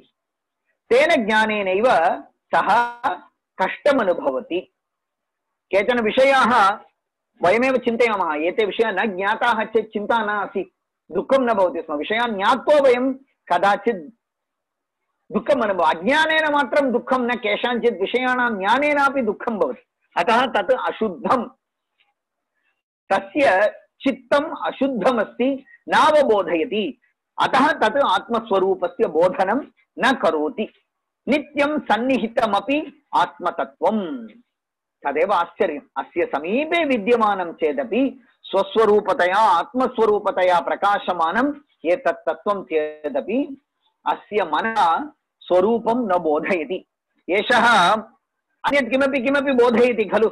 तेन ज्ञानेनैव सः कष्टम् अनुभवति। केचन विषयाः वयमेव चिन्तयामः, एते विषयाः न ज्ञाताः चेत् चिन्ता न आसीत्, दुःखं न भवति स्म। विषयान् ज्ञात्वा वयं कदाचित् दुःखम् अनुभव, अज्ञानेन मात्रं दुःखं न, केषाञ्चित् विषयाणां ज्ञानेनापि दुःखं भवति। अतः तत् अशुद्धं, तस्य चित्तम् अशुद्धमस्ति, नावबोधयति। अतः तत् आत्मस्वरूपस्य बोधनं न करोति। नित्यं सन्निहितमपि आत्मतत्त्वम्। तदेव आश्चर्यम्, अस्य समीपे विद्यमानं चेदपि स्वस्वरूपतया आत्मस्वरूपतया प्रकाशमानम् एतत् तत्त्वं चेदपि अस्य मनः स्वरूपं न बोधयति। एषः अन्यत् किमपि किमपि बोधयति खलु,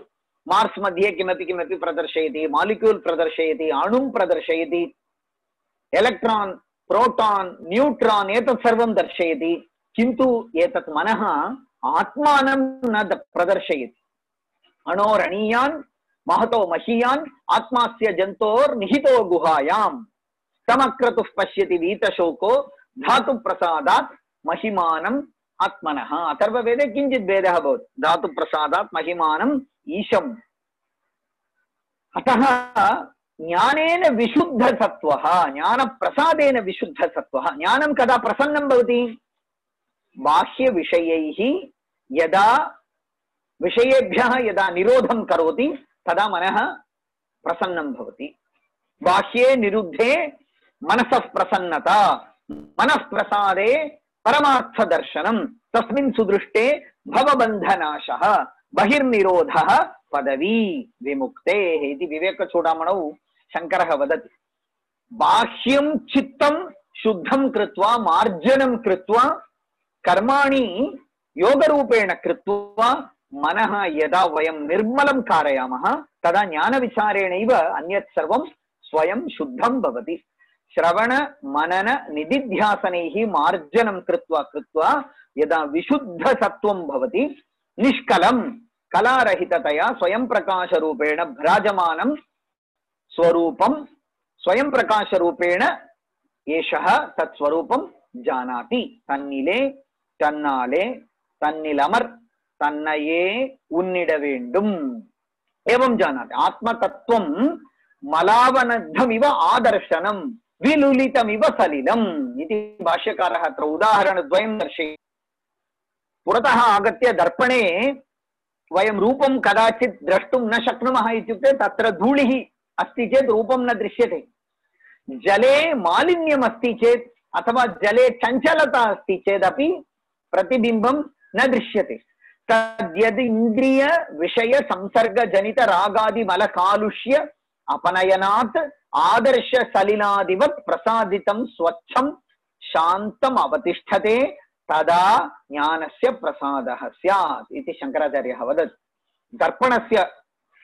मार्स् मध्ये किमपि किमपि प्रदर्शयति, मालिक्यूल् प्रदर्शयति, अणुं प्रदर्शयति, एलेक्ट्रान्, प्रोटान्, न्यूट्रान् एतत् सर्वं दर्शयति। किन्तु एतत् मनः आत्मानं न प्रदर्शयति। अणोरणीयान् महतो महीयान् आत्मास्य जन्तोर्निहितो गुहायाम् तमक्रतुः पश्यति वीतशोको धातु प्रसादात् महिमानम् आत्मनः। अथर्ववेदे किञ्चित् भेदः भवति। धातु प्रसादात् महिमानम् ईशम्। अतः ज्ञानेन विशुद्धसत्त्वः, ज्ञानप्रसादेन विशुद्धसत्त्वः। ज्ञानं कदा प्रसन्नं भवति? बाह्यविषयैः यदा विषयेभ्यः यदा निरोधं करोति तदा मनः प्रसन्नं भवति। बाह्ये निरुद्धे मनसः प्रसन्नता, मनः प्रसादे परमार्थदर्शनं, तस्मिन् सुदृष्टे भवबन्धनाशः, बहिर्निरोधः पदवी विमुक्तेः इति विवेकचूडामणौ शङ्करः वदति। बाह्यं चित्तं शुद्धं कृत्वा मार्जनं कृत्वा कर्माणि योगरूपेण कृत्वा मनः यदा वयं निर्मलं कारयामः तदा ज्ञानविचारेणैव अन्यत् सर्वं स्वयं शुद्धं भवति। श्रवण मनन निदिध्यासनैः मार्जनं कृत्वा कृत्वा यदा विशुद्धसत्त्वं भवति, निष्कलं कलारहिततया स्वयं प्रकाशरूपेण भ्राजमानं स्वरूपं स्वयं प्रकाशरूपेण एषः तत्स्वरूपं जानाति। तन्निले तन्नाले तन्निलमर् तन्नये उन्निड वेण्डुम् एवं जानाति। आत्मतत्त्वं मलावनद्धमिव आदर्शनं विलुलितमिव सलिलम् इति भाष्यकारः अत्र उदाहरणद्वयं दर्शयति। पुरतः आगत्य दर्पणे वयं रूपं कदाचित् द्रष्टुं न शक्नुमः इत्युक्ते तत्र धूलिः अस्ति चेत् रूपं न दृश्यते। जले मालिन्यम् अस्ति चेत् अथवा जले चञ्चलता अस्ति चेदपि प्रतिबिम्बं न दृश्यते। तद्यद् इन्द्रिय विषय संसर्ग जनित रागादि मल कालुष्य अपनयनात् आदर्श सलिलादिवत् प्रसादितं स्वच्छं शान्तम् अवतिष्ठते तदा ज्ञानस्य प्रसादः स्यात् इति शङ्कराचार्यः वदति। दर्पणस्य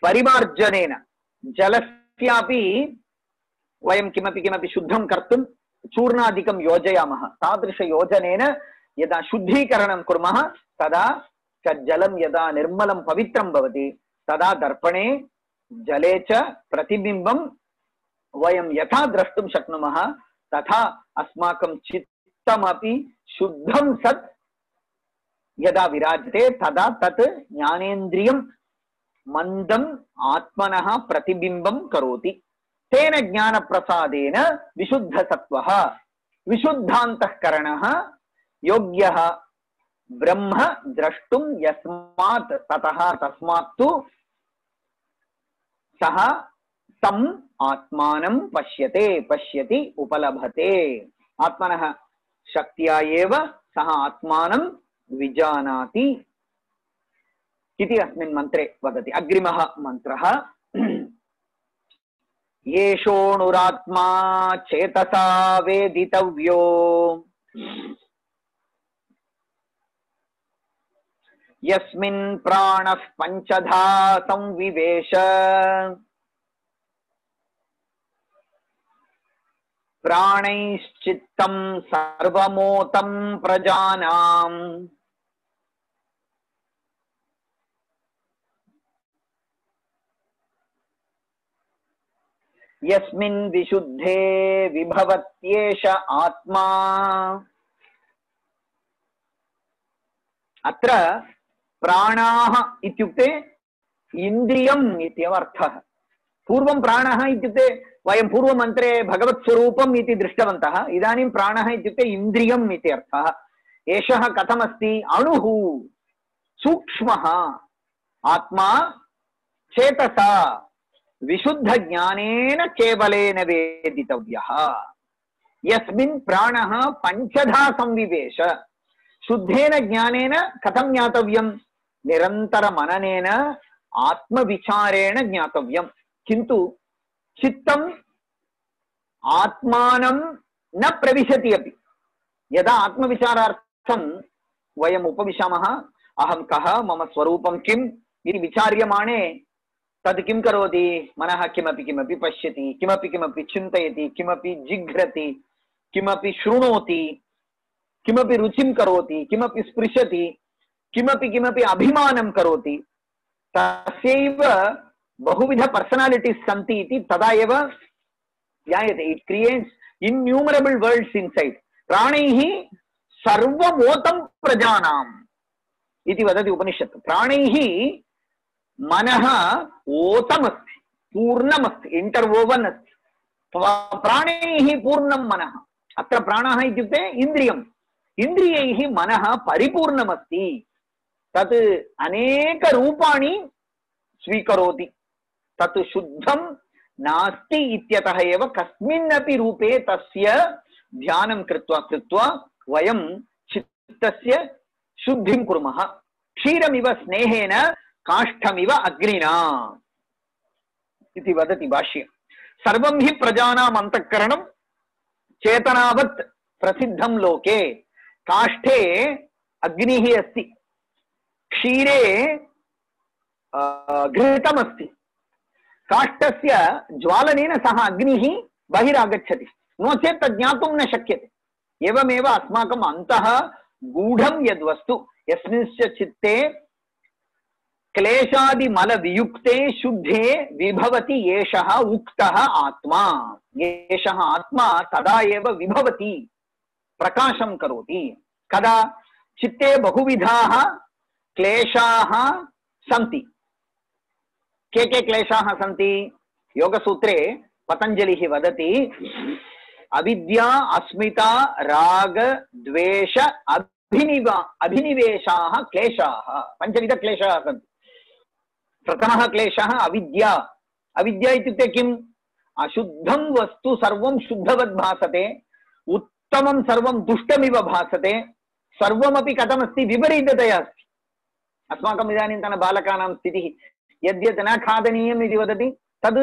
परिमार्जनेन जलस्यापि वयं किमपि शुद्धं कर्तुं चूर्णादिकं योजयामः। तादृशयोजनेन यदा शुद्धीकरणं कुर्मः तदा तज्जलं यदा निर्मलं पवित्रं भवति तदा दर्पणे जले च प्रतिबिम्बं वयं यथा द्रष्टुं शक्नुमः तथा अस्माकं चित्तमपि शुद्धं सत् यदा विराजते तदा तत् ज्ञानेन्द्रियं मन्दम् आत्मनः प्रतिबिम्बं करोति। तेन ज्ञानप्रसादेन विशुद्धसत्त्वः विशुद्धान्तःकरणः योग्यः ब्रह्म द्रष्टुं यस्मात् ततः तस्मात् तु सः तम् आत्मानं पश्यति उपलभते। आत्मनः शक्त्या एव सः आत्मानं विजानाति इति अस्मिन् मन्त्रे वदति। अग्रिमः मन्त्रः येषोऽणुरात्मा चेतसा वेदितव्यो यस्मिन् प्राणः पञ्चधा संविवेश प्राणैश्चित्तं सर्वमोतं प्रजानाम् यस्मिन् विशुद्धे विभवत्येष आत्मा। अत्र प्राणाः इत्युक्ते इन्द्रियम् इत्येव अर्थः। पूर्वं प्राणः इत्युक्ते वयं पूर्वमन्त्रे भगवत्स्वरूपम् इति दृष्टवन्तः। इदानीं प्राणः इत्युक्ते इन्द्रियम् इति अर्थः। एषः कथमस्ति? अणुः, सूक्ष्मः, आत्मा चेतसा विशुद्धज्ञानेन केवलेन वेदितव्यः। यस्मिन् प्राणः पञ्चधा संविवेश। शुद्धेन ज्ञानेन कथं ज्ञातव्यं? निरन्तरमननेन आत्मविचारेण ज्ञातव्यं। किन्तु चित्तम् आत्मानं न प्रविशति अपि। यदा आत्मविचारार्थं वयम् उपविशामः, अहं कः, मम स्वरूपं किम् इति विचार्यमाणे तद् किं करोति? मनः किमपि पश्यति, किमपि चिन्तयति, किमपि जिघ्रति, किमपि शृणोति, किमपि रुचिं करोति, किमपि स्पृशति, किमपि किमपि अभिमानं करोति, तस्यैव बहुविध पर्सनालिटीस् सन्ति इति तदा एव ज्ञायते. इट् क्रिएट्स् इन्यूमरेबल् वर्ड्स् इन्सैड्. प्राणैः सर्वमोतं प्रजानाम् इति वदति उपनिषत्. प्राणैः मनः ओतमस्ति, पूर्णमस्ति, इंटर्वोवन् अस्ति. प्राणैः पूर्णं मनः. अत्र प्राणः इत्युक्ते इन्द्रियम्. इन्द्रियैः मनः परिपूर्णमस्ति. तत् अनेक रूपाणि स्वीकरोति. तत् शुद्धं नास्ति इत्यतः एव कस्मिन्नपि रूपे तस्य ध्यानं कृत्वा वयं चित्तस्य शुद्धिं कुर्मः. क्षीरमिव स्नेहेन काष्ठमिव अग्निना इति वदति भाष्ये. सर्वं हि प्रजानाम् अन्तःकरणं चेतनावत् प्रसिद्धं लोके. काष्ठे अग्निः अस्ति, क्षीरे घृतमस्ति. काष्ठस्य ज्वालनेन सह अग्निः बहिरागच्छति, नो चेत् तद् ज्ञातुं न शक्यते. एवमेव अस्माकम् अन्तः गूढं यद्वस्तु, यस्मिंश्च चित्ते क्लेशादिमलवियुक्ते शुद्धे विभवति एषः उक्तः आत्मा. एषः आत्मा तदा एव विभवति, प्रकाशं करोति. कदा? चित्ते बहुविधाः क्लेशाः सन्ति. के क्लेशाः सन्ति? योगसूत्रे पतञ्जलिः वदति, अविद्या, अस्मिता, राग, द्वेष, अभिनिवेशाः क्लेशाः. पञ्चविध क्लेशाः सन्ति. प्रथमः क्लेशः अविद्या. अविद्या इत्युक्ते किम्? अशुद्धं वस्तु सर्वं शुद्धवत् भासते, उत्तमं सर्वं दुष्टमिव भासते, सर्वमपि कथमस्ति? विपरीततया अस्ति. अस्माकम् इदानीन्तन बालकानां स्थितिः, यद्यत् न खादनीयम् इति वदति तद्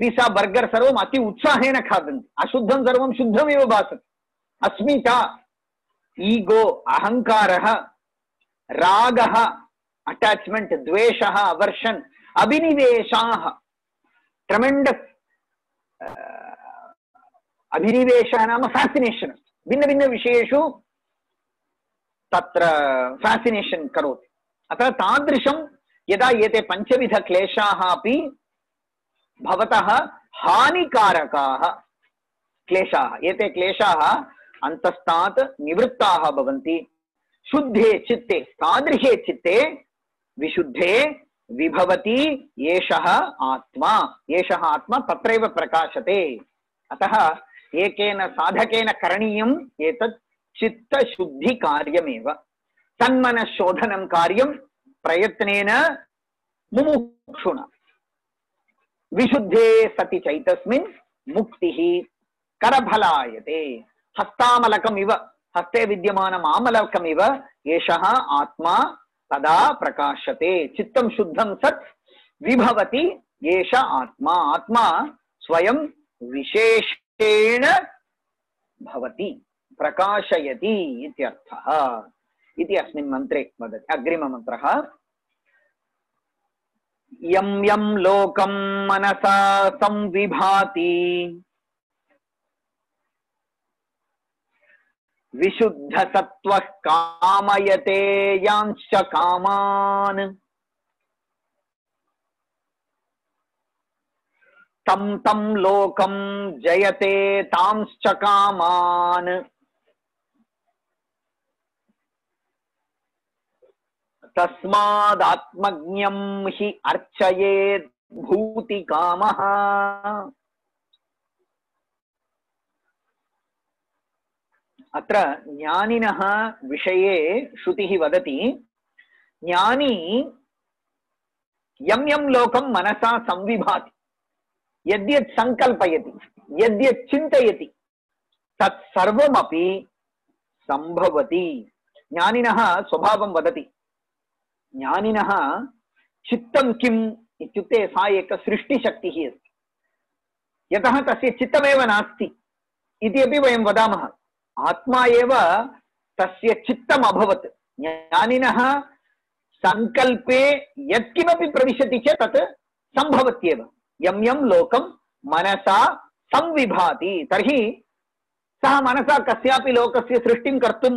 पिज़्ज़ा बर्गर् सर्वम् अति उत्साहेन खादन्ति. अशुद्धं सर्वं शुद्धमेव भासते. अस्मिता, ईगो, अहङ्कारः, रागः, अटैचमेंट, द्वेषः, अवर्षन्, अभिनिवेशाः, ट्रेमेंडस्. अभिनिवेशः नाम फैसिनेशन्. भिन्न भिन्न विषयेषु तत्र फैसिनेशन् करोति. अतः तादृशं यदा एते पञ्चविध क्लेशाः अपि भवतः हानिकारकाः क्लेशाः, एते क्लेशाः अन्तस्तात् निवृत्ताः भवन्ति. शुद्धे चित्ते, तादृशे चित्ते विशुद्धे विभवति एषः आत्मा. एषः आत्मा तत्रैव प्रकाशते. अतः एकेन साधकेन करणीयम् एतत् चित्तशुद्धिकार्यमेव. तन्मनःशोधनं कार्यं प्रयत्नेन मुमुक्षुणा. विशुद्धे सति चैतस्मिन् मुक्तिः करफलायते. हस्तामलकमिव, हस्ते विद्यमानम् आमलकमिव एषः आत्मा तदा प्रकाशते. चित्तं शुद्धं सत् विभवति एष आत्मा. आत्मा स्वयं विशेषेण भवति, प्रकाशयति इत्यर्थः इति अस्मिन् मन्त्रे वदति. अग्रिममन्त्रः, यं यं लोकं मनसा संविभाति विशुद्धसत्त्वः कामयते यांश्च कामान् तं तं लोकं जयते तांश्च कामान्. तस्मादात्मज्ञं हि अर्चयेत् भूतिकामः. अत्र ज्ञानिनः विषये श्रुतिः वदति, ज्ञानी यं यं लोकं मनसा संविभाति, यद्यत् संकल्पयति, यद्यत् चिन्तयति, तत्सर्वमपि संभवति. ज्ञानिनः स्वभावं वदति. ज्ञानिनः चित्तं किम् इत्युक्ते सा एक सृष्टिशक्तिः अस्ति. यतः तस्य चित्तमेव नास्ति इति अपि वयं वदामः. आत्मा एव तस्य चित्तम् अभवत्. ज्ञानिनः संकल्पे यत्किमपि प्रविशति चेत् तत् सम्भवत्येव. यं यं लोकं मनसा संविभाति, तर्हि सः मनसा कस्यापि लोकस्य सृष्टिं कर्तुं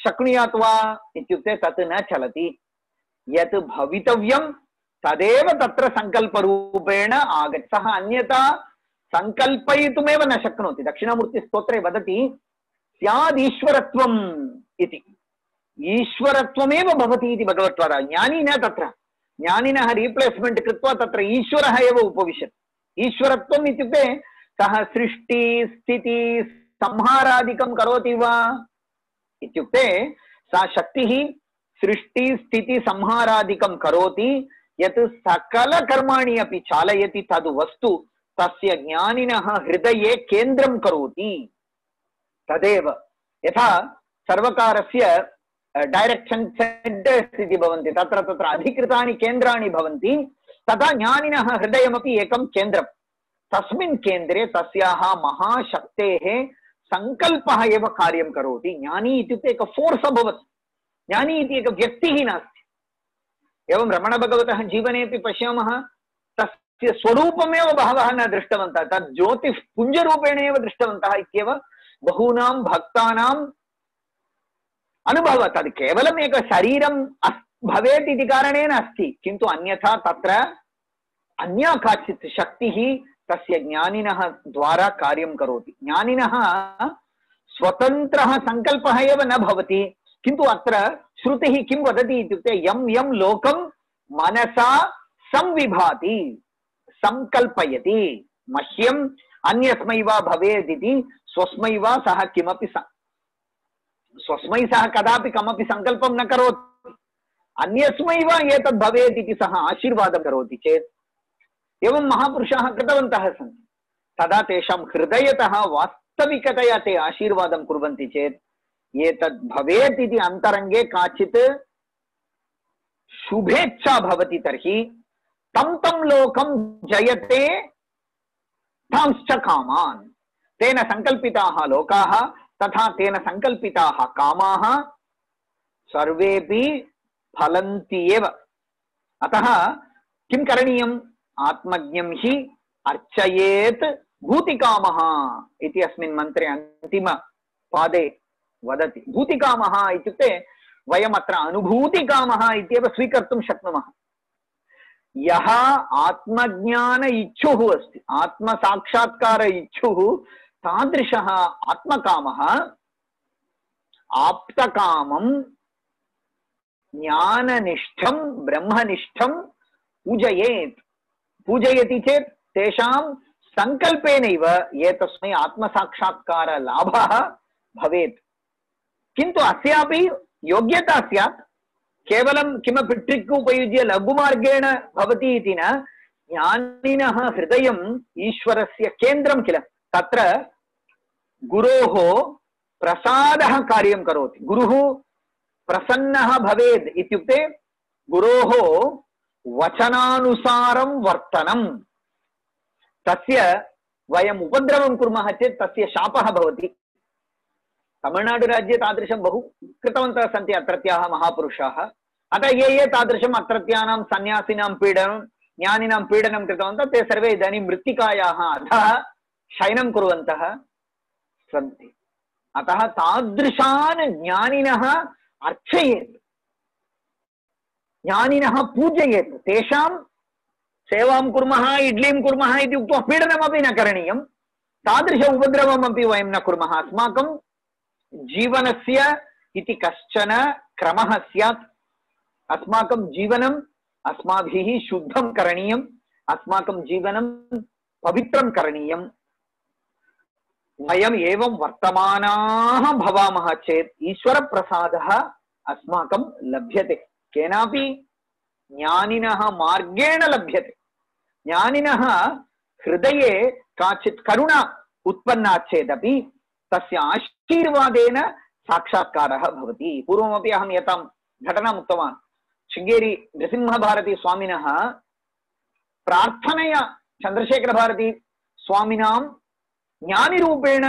शक्नुयात् वा इत्युक्ते तत् न चलति। यत् भवितव्यं तदेव तत्र सङ्कल्परूपेण आगच्छति। सः अन्यथा सङ्कल्पयितुमेव न शक्नोति। दक्षिणामूर्तिस्तोत्रे वदति स्यादीश्वरत्वम् इति। ईश्वरत्वमेव भवति इति भगवत्पादः। ज्ञानी न तत्र, ज्ञानिनः रिप्लेस्मेंट कृत्वा तत्र ईश्वरः एव उपविशति। ईश्वरत्वम् इत्युक्ते सः सृष्टि स्थिति संहारादिकं करोति वा इत्युक्ते सा शक्तिः सृष्टि स्थिति संहारादिकं करोति। यत् सकल कर्माणि अपि चालयति तद् वस्तु तस्य ज्ञानिनः हृदये केन्द्रं करोति। तदेव यथा सर्वकारस्य डायरेक्शन सेंटर्स इति भवन्ति, तत्र तत्र अधिकृतानि केन्द्राणि भवन्ति, तथा ज्ञानिनः हृदयमपि एकं केन्द्रं। तस्मिन् केन्द्रे तस्याः महाशक्तेः सङ्कल्पः एव कार्यं करोति। ज्ञानी इत्युक्ते एक फोर्स अभवत्। ज्ञानी इति एक व्यक्तिः नास्ति। एवं रमणभगवतः जीवनेपि पश्यामः, तस्य स्वरूपमेव बहवः न दृष्टवन्तः, तद् ज्योतिष्पुञ्जरूपेण एव दृष्टवन्तः इत्येव बहूनां भक्तानाम् अनुभवः। तद् केवलम् एक शरीरं भवेत् इति कारणेन अस्ति, किन्तु अन्यथा तत्र अन्या काचित् शक्तिः तस्य ज्ञानिनः द्वारा कार्यं करोति। ज्ञानिनः स्वतन्त्रः सङ्कल्पः एव न भवति, किन्तु अत्र श्रुतिः किं वदति इत्युक्ते यं यं लोकं मनसा संविभाति, संकल्पयति, मह्यम् अन्यस्मै वा भवेत् इति स्वस्मै वा सः किमपि स्वस्मै सः कदापि कमपि सङ्कल्पं न करोति, अन्यस्मै वा एतद् भवेत् इति सः आशीर्वादं करोति चेत्, एवं महापुरुषाः कृतवन्तः सन्ति, तदा तेषां हृदयतः वास्तविकतया ते आशीर्वादं कुर्वन्ति चेत् एतद् भवेत् इति अन्तरङ्गे काचित् शुभेच्छा भवति, तर्हि तं तं लोकं जयते तांश्च कामान्। तेन सङ्कल्पिताः लोकाः तथा तेन सङ्कल्पिताः कामाः सर्वेपि फलन्ति एव। अतः किं करणीयम्? आत्मज्ञं हि अर्चयेत् भूतिकामः इति अस्मिन् मन्त्रे अन्तिमपादे वदति। भूतिकामः इत्युक्ते वयम् अत्र अनुभूतिकामः इत्येव स्वीकर्तुं शक्नुमः। यः आत्मज्ञान इच्छुः अस्ति, आत्मसाक्षात्कार इच्छुः, तादृशः आत्मकामः आप्तकामं ज्ञाननिष्ठं ब्रह्मनिष्ठं पूजयेत्। पूजयति चेत् तेषां सङ्कल्पेनैव एतस्मै आत्मसाक्षात्कार लाभः भवेत्। किन्तु अस्यापि योग्यता स्यात्। केवलं किमपि ट्रिक् उपयुज्य लघुमार्गेण भवति इति न। ज्ञानिनः हृदयम् ईश्वरस्य केन्द्रं किल, तत्र गुरोः प्रसादः कार्यं करोति। गुरुः प्रसन्नः भवेत् इत्युक्ते गुरोः वचनानुसारं वर्तनं। तस्य वयम् उपद्रवं कुर्मः चेत् तस्य शापः भवति। तमिळ्नाडुराज्ये तादृशं बहु कृतवन्तः सन्ति अत्रत्याः महापुरुषाः। अतः ये तादृशम् अत्रत्यानां सन्यासिनां पीडनं, ज्ञानिनां पीडनं कृतवन्तः, ते सर्वे इदानीं मृत्तिकायाः अधः शयनं कुर्वन्तः सन्ति। अतः तादृशान् ज्ञानिनः अर्चयेत्, ज्ञानिनः पूजयेत्। तेषां सेवां कुर्मः, इड्लीं कुर्मः इति उक्त्वा पीडनमपि न करणीयं, तादृश उपद्रवमपि वयं न कुर्मः। अस्माकं जीवनस्य इति कश्चन क्रमः स्यात्। अस्माकं जीवनम् अस्माभिः शुद्धं करणीयम्, अस्माकं जीवनं पवित्रं करणीयम्। वयम् एवं वर्तमानाः भवामः चेत् ईश्वरप्रसादः अस्माकं लभ्यते, केनापि ज्ञानिनः मार्गेण लभ्यते। ज्ञानिनः हृदये काचित् करुणा उत्पन्ना चेदपि तस्य आशीर्वादेन साक्षात्कारः भवति। पूर्वमपि अहं एतां घटनाम् उक्तवान्। शृङ्गेरी नृसिंहभारती स्वामिनः प्रार्थनया चन्द्रशेखरभारती स्वामिनां ज्ञानिरूपेण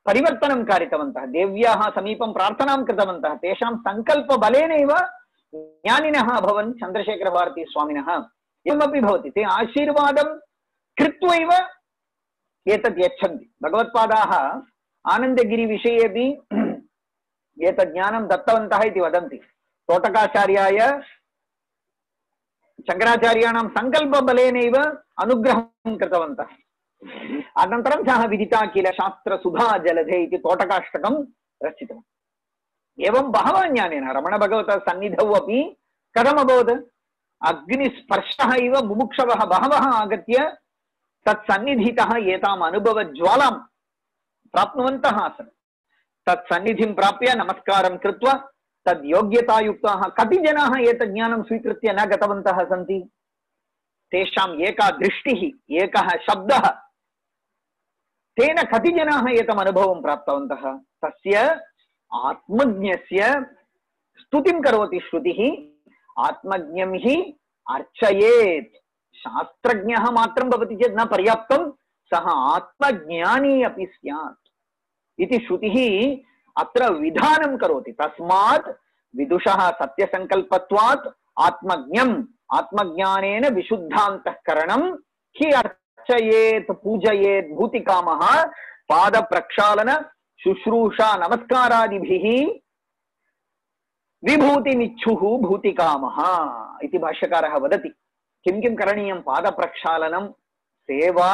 परिवर्तनं कारितवन्तः। देव्याः समीपं प्रार्थनां कृतवन्तः। तेषां सङ्कल्पबलेनैव ज्ञानिनः अभवन् चन्द्रशेखरभारती स्वामिनः। एवमपि भवति, ते आशीर्वादं कृत्वैव एतत् यच्छन्ति। भगवत्पादाः आनन्दगिरिविषयेपि एतत् ज्ञानं दत्तवन्तः इति वदन्ति। तोटकाचार्याय शङ्कराचार्याणां सङ्कल्पबलेनैव अनुग्रहं कृतवन्तः। अनन्तरं सः विदिता किल शास्त्रसुधा जलधे इति तोटकाष्टकं रचितवान्। एवं बहवः ज्ञानेन रमणभगवतः सन्निधौ अपि कथम् अभवत्? अग्निस्पर्शः इव मुमुक्षवः बहवः आगत्य तत्सन्निधितः एताम् अनुभवज्वालां प्राप्नुवन्तः आसन्। तत्सन्निधिं प्राप्य नमस्कारं कृत्वा तद्योग्यतायुक्ताः कति जनाः एतत् ज्ञानं स्वीकृत्य न गतवन्तः सन्ति? तेषाम् एका दृष्टिः, एकः शब्दः, तेन कति जनाः एतम् अनुभवं प्राप्तवन्तः? तस्य आत्मज्ञस्य स्तुतिं करोति श्रुतिः। आत्मज्ञं हि अर्चयेत्। शास्त्रज्ञः मात्रं भवति चेत् न पर्याप्तं, सः आत्मज्ञानी अपि स्यात् इति श्रुतिः अत्र विधानं करोति। तस्मात् विदुषः सत्यसङ्कल्पत्वात् आत्मज्ञम् आत्मज्ञानेन विशुद्धान्तःकरणं हि अर्चयेत् पूजयेत् भूतिकामः पादप्रक्षालन शुश्रूषा नमस्कारादिभिः विभूतिमिच्छुः भूतिकामः इति भाष्यकारः वदति। किं किं करणीयं? पादप्रक्षालनं, सेवा,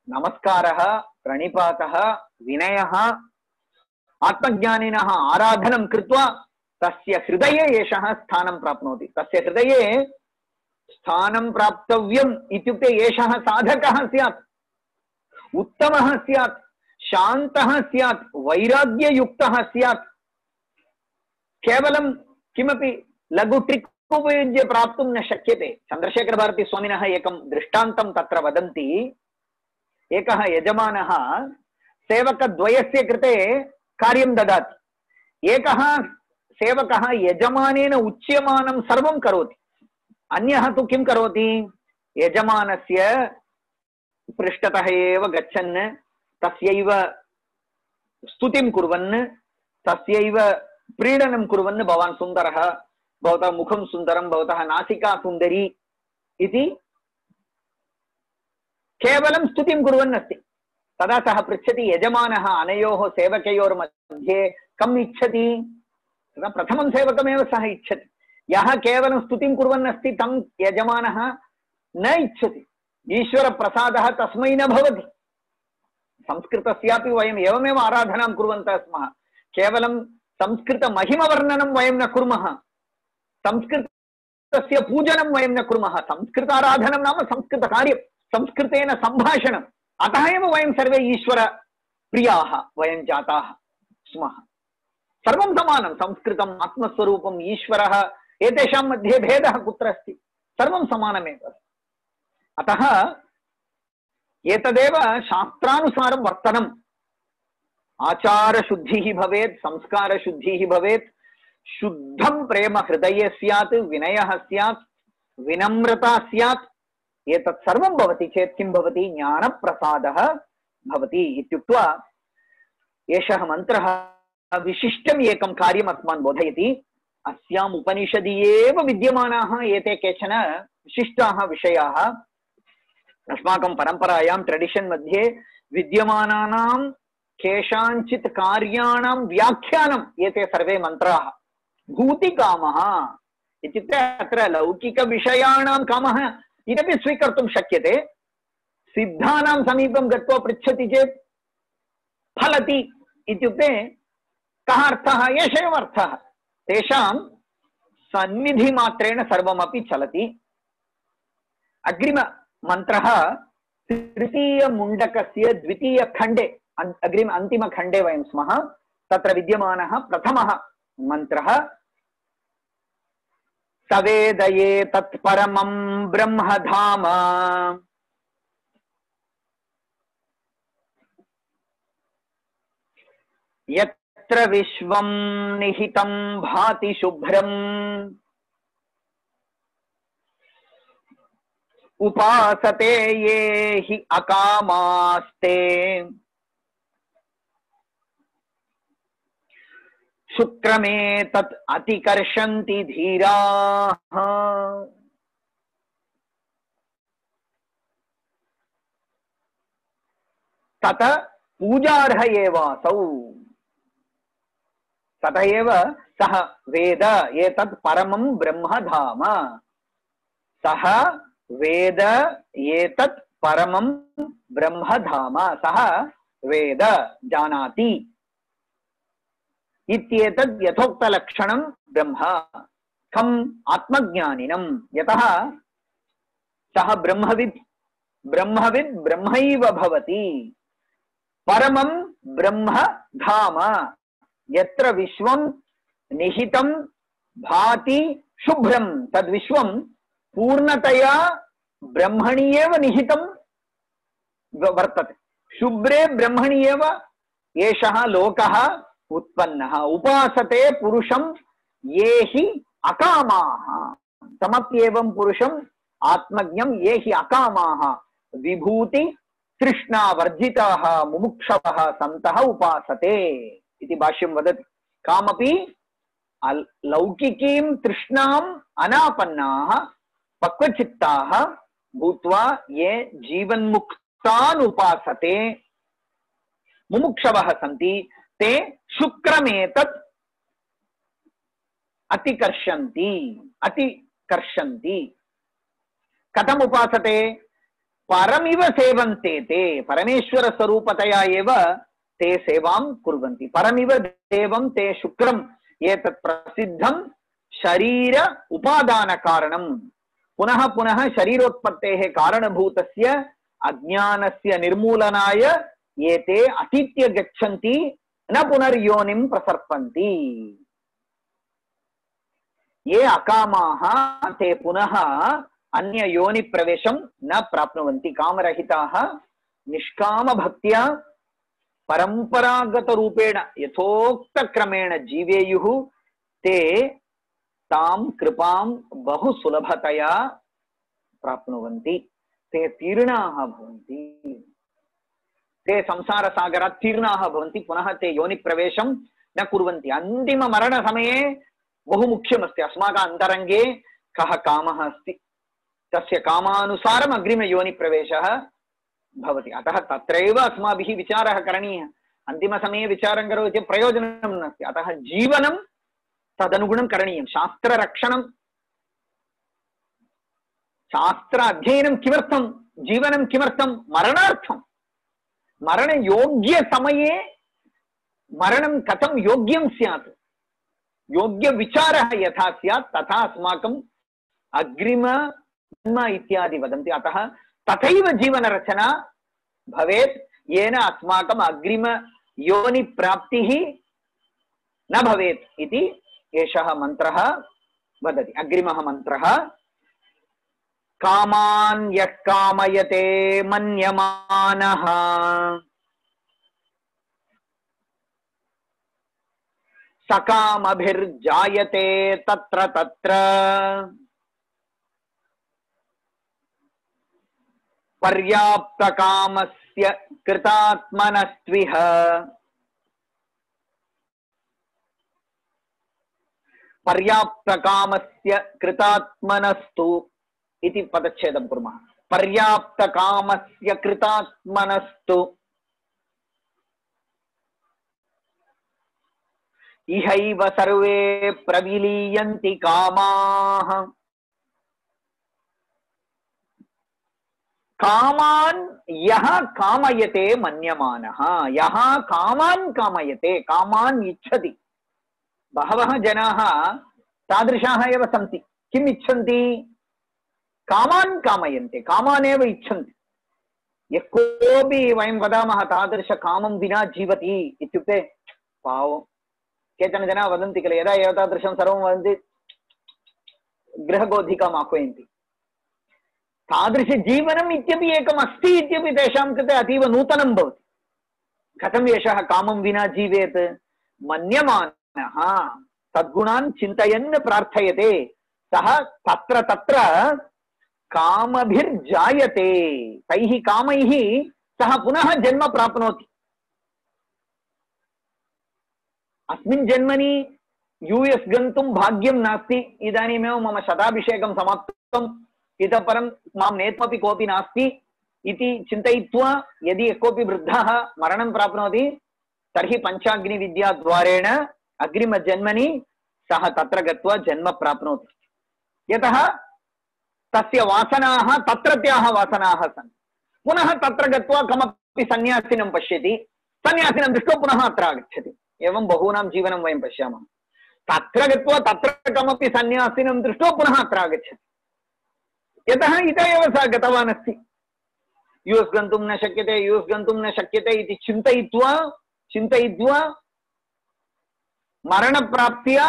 नमस्कारः, प्रणिपातः, विनयः, आत्मज्ञानिनः आराधनं कृत्वा तस्य हृदये एषः स्थानं प्राप्नोति। तस्य हृदये स्थानं प्राप्तव्यम् इत्युक्ते एषः साधकः स्यात्, उत्तमः स्यात्, शान्तः स्यात्, वैराग्ययुक्तः स्यात्। केवलं किमपि लघु ट्रिक् उपयुज्य प्राप्तुं न शक्यते। चन्द्रशेखरभारतीस्वामिनः एकं दृष्टान्तं तत्र वदन्ति। एकः यजमानः सेवकद्वयस्य कृते कार्यं ददाति। एकः सेवकः यजमानेन उच्यमानं सर्वं करोति, अन्यः तु किं करोति? यजमानस्य पृष्ठतः एव गच्छन् तस्यैव स्तुतिं कुर्वन्, तस्यैव प्रीडनं कुर्वन्, भवान् सुन्दरः, भवतः मुखं सुन्दरं, भवतः नासिका सुन्दरी इति केवलं स्तुतिं कुर्वन् अस्ति। तदा सः पृच्छति, यजमानः अनयोः सेवकयोर्मध्ये कम् इच्छति? तदा प्रथमं सेवकमेव सः इच्छति। यः केवलं स्तुतिं कुर्वन् अस्ति तं यजमानः न इच्छति। ईश्वरप्रसादः तस्मै न भवति। संस्कृतस्यापि वयम् एवमेव आराधनां कुर्वन्तः स्मः। केवलं संस्कृतमहिमवर्णनं वयं न कुर्मः, संस्कृतस्य पूजनं वयं न कुर्मः। संस्कृताराधनं नाम संस्कृतकार्यं, संस्कृतेन सम्भाषणम्। अतः एव वयं सर्वे ईश्वरप्रियाः वयं जाताः स्मः। सर्वं समानं, संस्कृतम्, आत्मस्वरूपम्, ईश्वरः, एतेषां मध्ये भेदः कुत्र अस्ति? सर्वं समानमेव। अतः एतदेव शास्त्रानुसारं वर्तनम्। आचारशुद्धिः भवेत्, संस्कारशुद्धिः भवेत्, शुद्धं प्रेम हृदये स्यात्, विनयः स्यात्, विनम्रता स्यात्। एतत् सर्वं भवति चेत् किं भवति? ज्ञानप्रसादः भवति इत्युक्त्वा एषः मन्त्रः विशिष्टम् एकं कार्यम् अस्मान् बोधयति। अस्याम् उपनिषदि एव विद्यमानाः एते केचन विशिष्टाः विषयाः। अस्माकं परम्परायां ट्रेडिशन् मध्ये विद्यमानानां केषाञ्चित् कार्याणां व्याख्यानम् एते सर्वे मन्त्राः। भूतिकामः इत्युक्ते अत्र लौकिकविषयाणां कामः इदपि स्वीकर्तुं शक्यते। सिद्धानां समीपं गत्वा पृच्छति चेत् फलति इत्युक्ते कः अर्थः? एष एव अर्थः। तेषां सन्निधिमात्रेण सर्वमपि चलति। अग्रिममन्त्रः तृतीयमुण्डकस्य द्वितीयखण्डे, अन्तिमखण्डे वयं स्मः। तत्र विद्यमानः प्रथमः मन्त्रः सवेदये तत्परमं ब्रह्मधाम यत्र विश्वं निहितं भाति शुभ्रम् उपासते ये हि अकामास्ते शुक्रमे तत् अतिकर्षन्ति धीराः। तत पूजार्ह एवासौ। ततः एव सः वेद एतत् परमं ब्रह्मधाम, सः वेद एतत् परमं ब्रह्मधाम, सः वेद जानाति इत्येतद् यथोक्तलक्षणं ब्रह्म। खम् आत्मज्ञानिनं, यतः सः ब्रह्मविद्, ब्रह्मविद् ब्रह्मैव भवति। परमं ब्रह्म धाम, यत्र विश्वं निहितं भाति शुभ्रं, तद्विश्वं पूर्णतया ब्रह्मणि एव निहितं वर्तते। शुभ्रे ब्रह्मणि एव एषः लोकः उत्पन्नः। उपासते पुरुषं ये हि अकामाः, समप्येवं पुरुषम् आत्मज्ञं ये हि अकामाः विभूति तृष्णावर्जिताः मुमुक्षवः सन्तः उपासते इति भाष्यं वदति। कामपि लौकिकीं तृष्णाम् अनापन्नाः पक्वचित्ताः भूत्वा ये जीवन्मुक्तान् उपासते मुमुक्षवः सन्ति, ते शुक्रमेतत् अतिकर्षन्ति। कथम् उपासते? परमिव सेवन्ते ते, परमेश्वर स्वरूपतया एव ते सेवां कुर्वन्ति। परमिव देवं ते शुक्रम् एतत् प्रसिद्धं शरीर उपादान कारणं। पुनः पुनः शरीरोत्पत्तेः कारणभूतस्य अज्ञानस्य निर्मूलनाय एते अतीत्य गच्छन्ति, न पुनर्योनिं प्रसर्पन्ति। ये अकामाः ते पुनः अन्य योनि प्रवेशं न प्राप्नुवन्ति। कामरहिताः निष्काम भक्त्या परंपरागत रूपेण यथोक्तक्रमेण जीवेयुः, ते तां कृपां बहु सुलभतया प्राप्नुवन्ति। ते तीर्णाः भवन्ति, ते संसारसागरात् तीर्णाः भवन्ति, पुनः ते योनि प्रवेशं न कुर्वन्ति। अन्तिम मरण समये बहु मुख्यमस्ति अस्माकं अन्तरङ्गे कः कामः अस्ति, तस्य कामानुसारम् अग्रिम योनि प्रवेशः भवति। अतः तत्रैव अस्माभिः विचारः करणीयः। अन्तिमसमये विचारं करोति चेत् प्रयोजनं नास्ति। अतः जीवनं तदनुगुणं करणीयं। शास्त्ररक्षणं, शास्त्र अध्ययनं किमर्थं? जीवनं किमर्थं? मरणार्थं। मरणयोग्यसमये मरणं कथं योग्यं स्यात्, योग्यविचारः यथा स्यात् तथा अस्माकम् अग्रिम जन्म इत्यादि वदन्ति। अतः तथैव जीवनरचना भवेत्, येन अस्माकम् अग्रिम योनि प्राप्तिः न भवेत् इति एषः मन्त्रः वदति। अग्रिमः मन्त्रः, कामान् यः कामयते मन्यमानः सकामभिर्जायते तत्र तत्र पर्याप्तकामस्य कृतात्मनस्त्विह पर्याप्तकामस्य कृतात्मनस्तु इति पदच्छेदं कुर्मः। पर्याप्तकामस्य कृतात्मनस्तु इहैव सर्वे प्रविलीयन्ति कामाः। कामान् यः कामयते मन्यमानः, यः कामान् कामयते, कामान् इच्छति। बहवः जनाः तादृशाः एव सन्ति। किम् इच्छन्ति? कामान् कामयन्ते, कामान् एव इच्छन्ति। यः कोऽपि वयं वदामः तादृश कामं विना जीवति इत्युक्ते पावं। केचन जनाः वदन्ति किल, यदा एतादृशं सर्वं वदन्ति गृहगोधिकाम् आह्वयन्ति। तादृशजीवनम् इत्यपि एकम् अस्ति इत्यपि तेषां कृते अतीव नूतनं भवति। कथम् एषः कामं विना जीवेत्? मन्यमानः तद्गुणान् चिन्तयन् प्रार्थयते, सः तत्र तत्र कामभिर्जायते। तैः कामैः सः पुनः जन्म प्राप्नोति। अस्मिन् जन्मनि यूएस् गन्तुं भाग्यं नास्ति, इदानीमेव मम शताभिषेकं समाप्तम्, इतः परं मां नेत्मपि कोऽपि नास्ति इति चिन्तयित्वा यदि कोऽपि वृद्धः मरणं प्राप्नोति तर्हि पञ्चाग्निविद्याद्वारेण अग्रिमजन्मनि सः तत्र गत्वा जन्म प्राप्नोति। यतः तस्य वासनाः तत्रत्याः वासनाः सन्ति। पुनः तत्र गत्वा कमपि सन्यासिनं पश्यति, सन्यासिनं दृष्ट्वा पुनः अत्र आगच्छति। एवं बहूनां जीवनं वयं पश्यामः। तत्र गत्वा तत्र कमपि सन्यासिनं दृष्ट्वा पुनः अत्र आगच्छति। यतः इतः एव सः गतवान् अस्ति। यूएस् गन्तुं न शक्यते, यूएस् गन्तुं न शक्यते इति चिन्तयित्वा मरणप्राप्त्या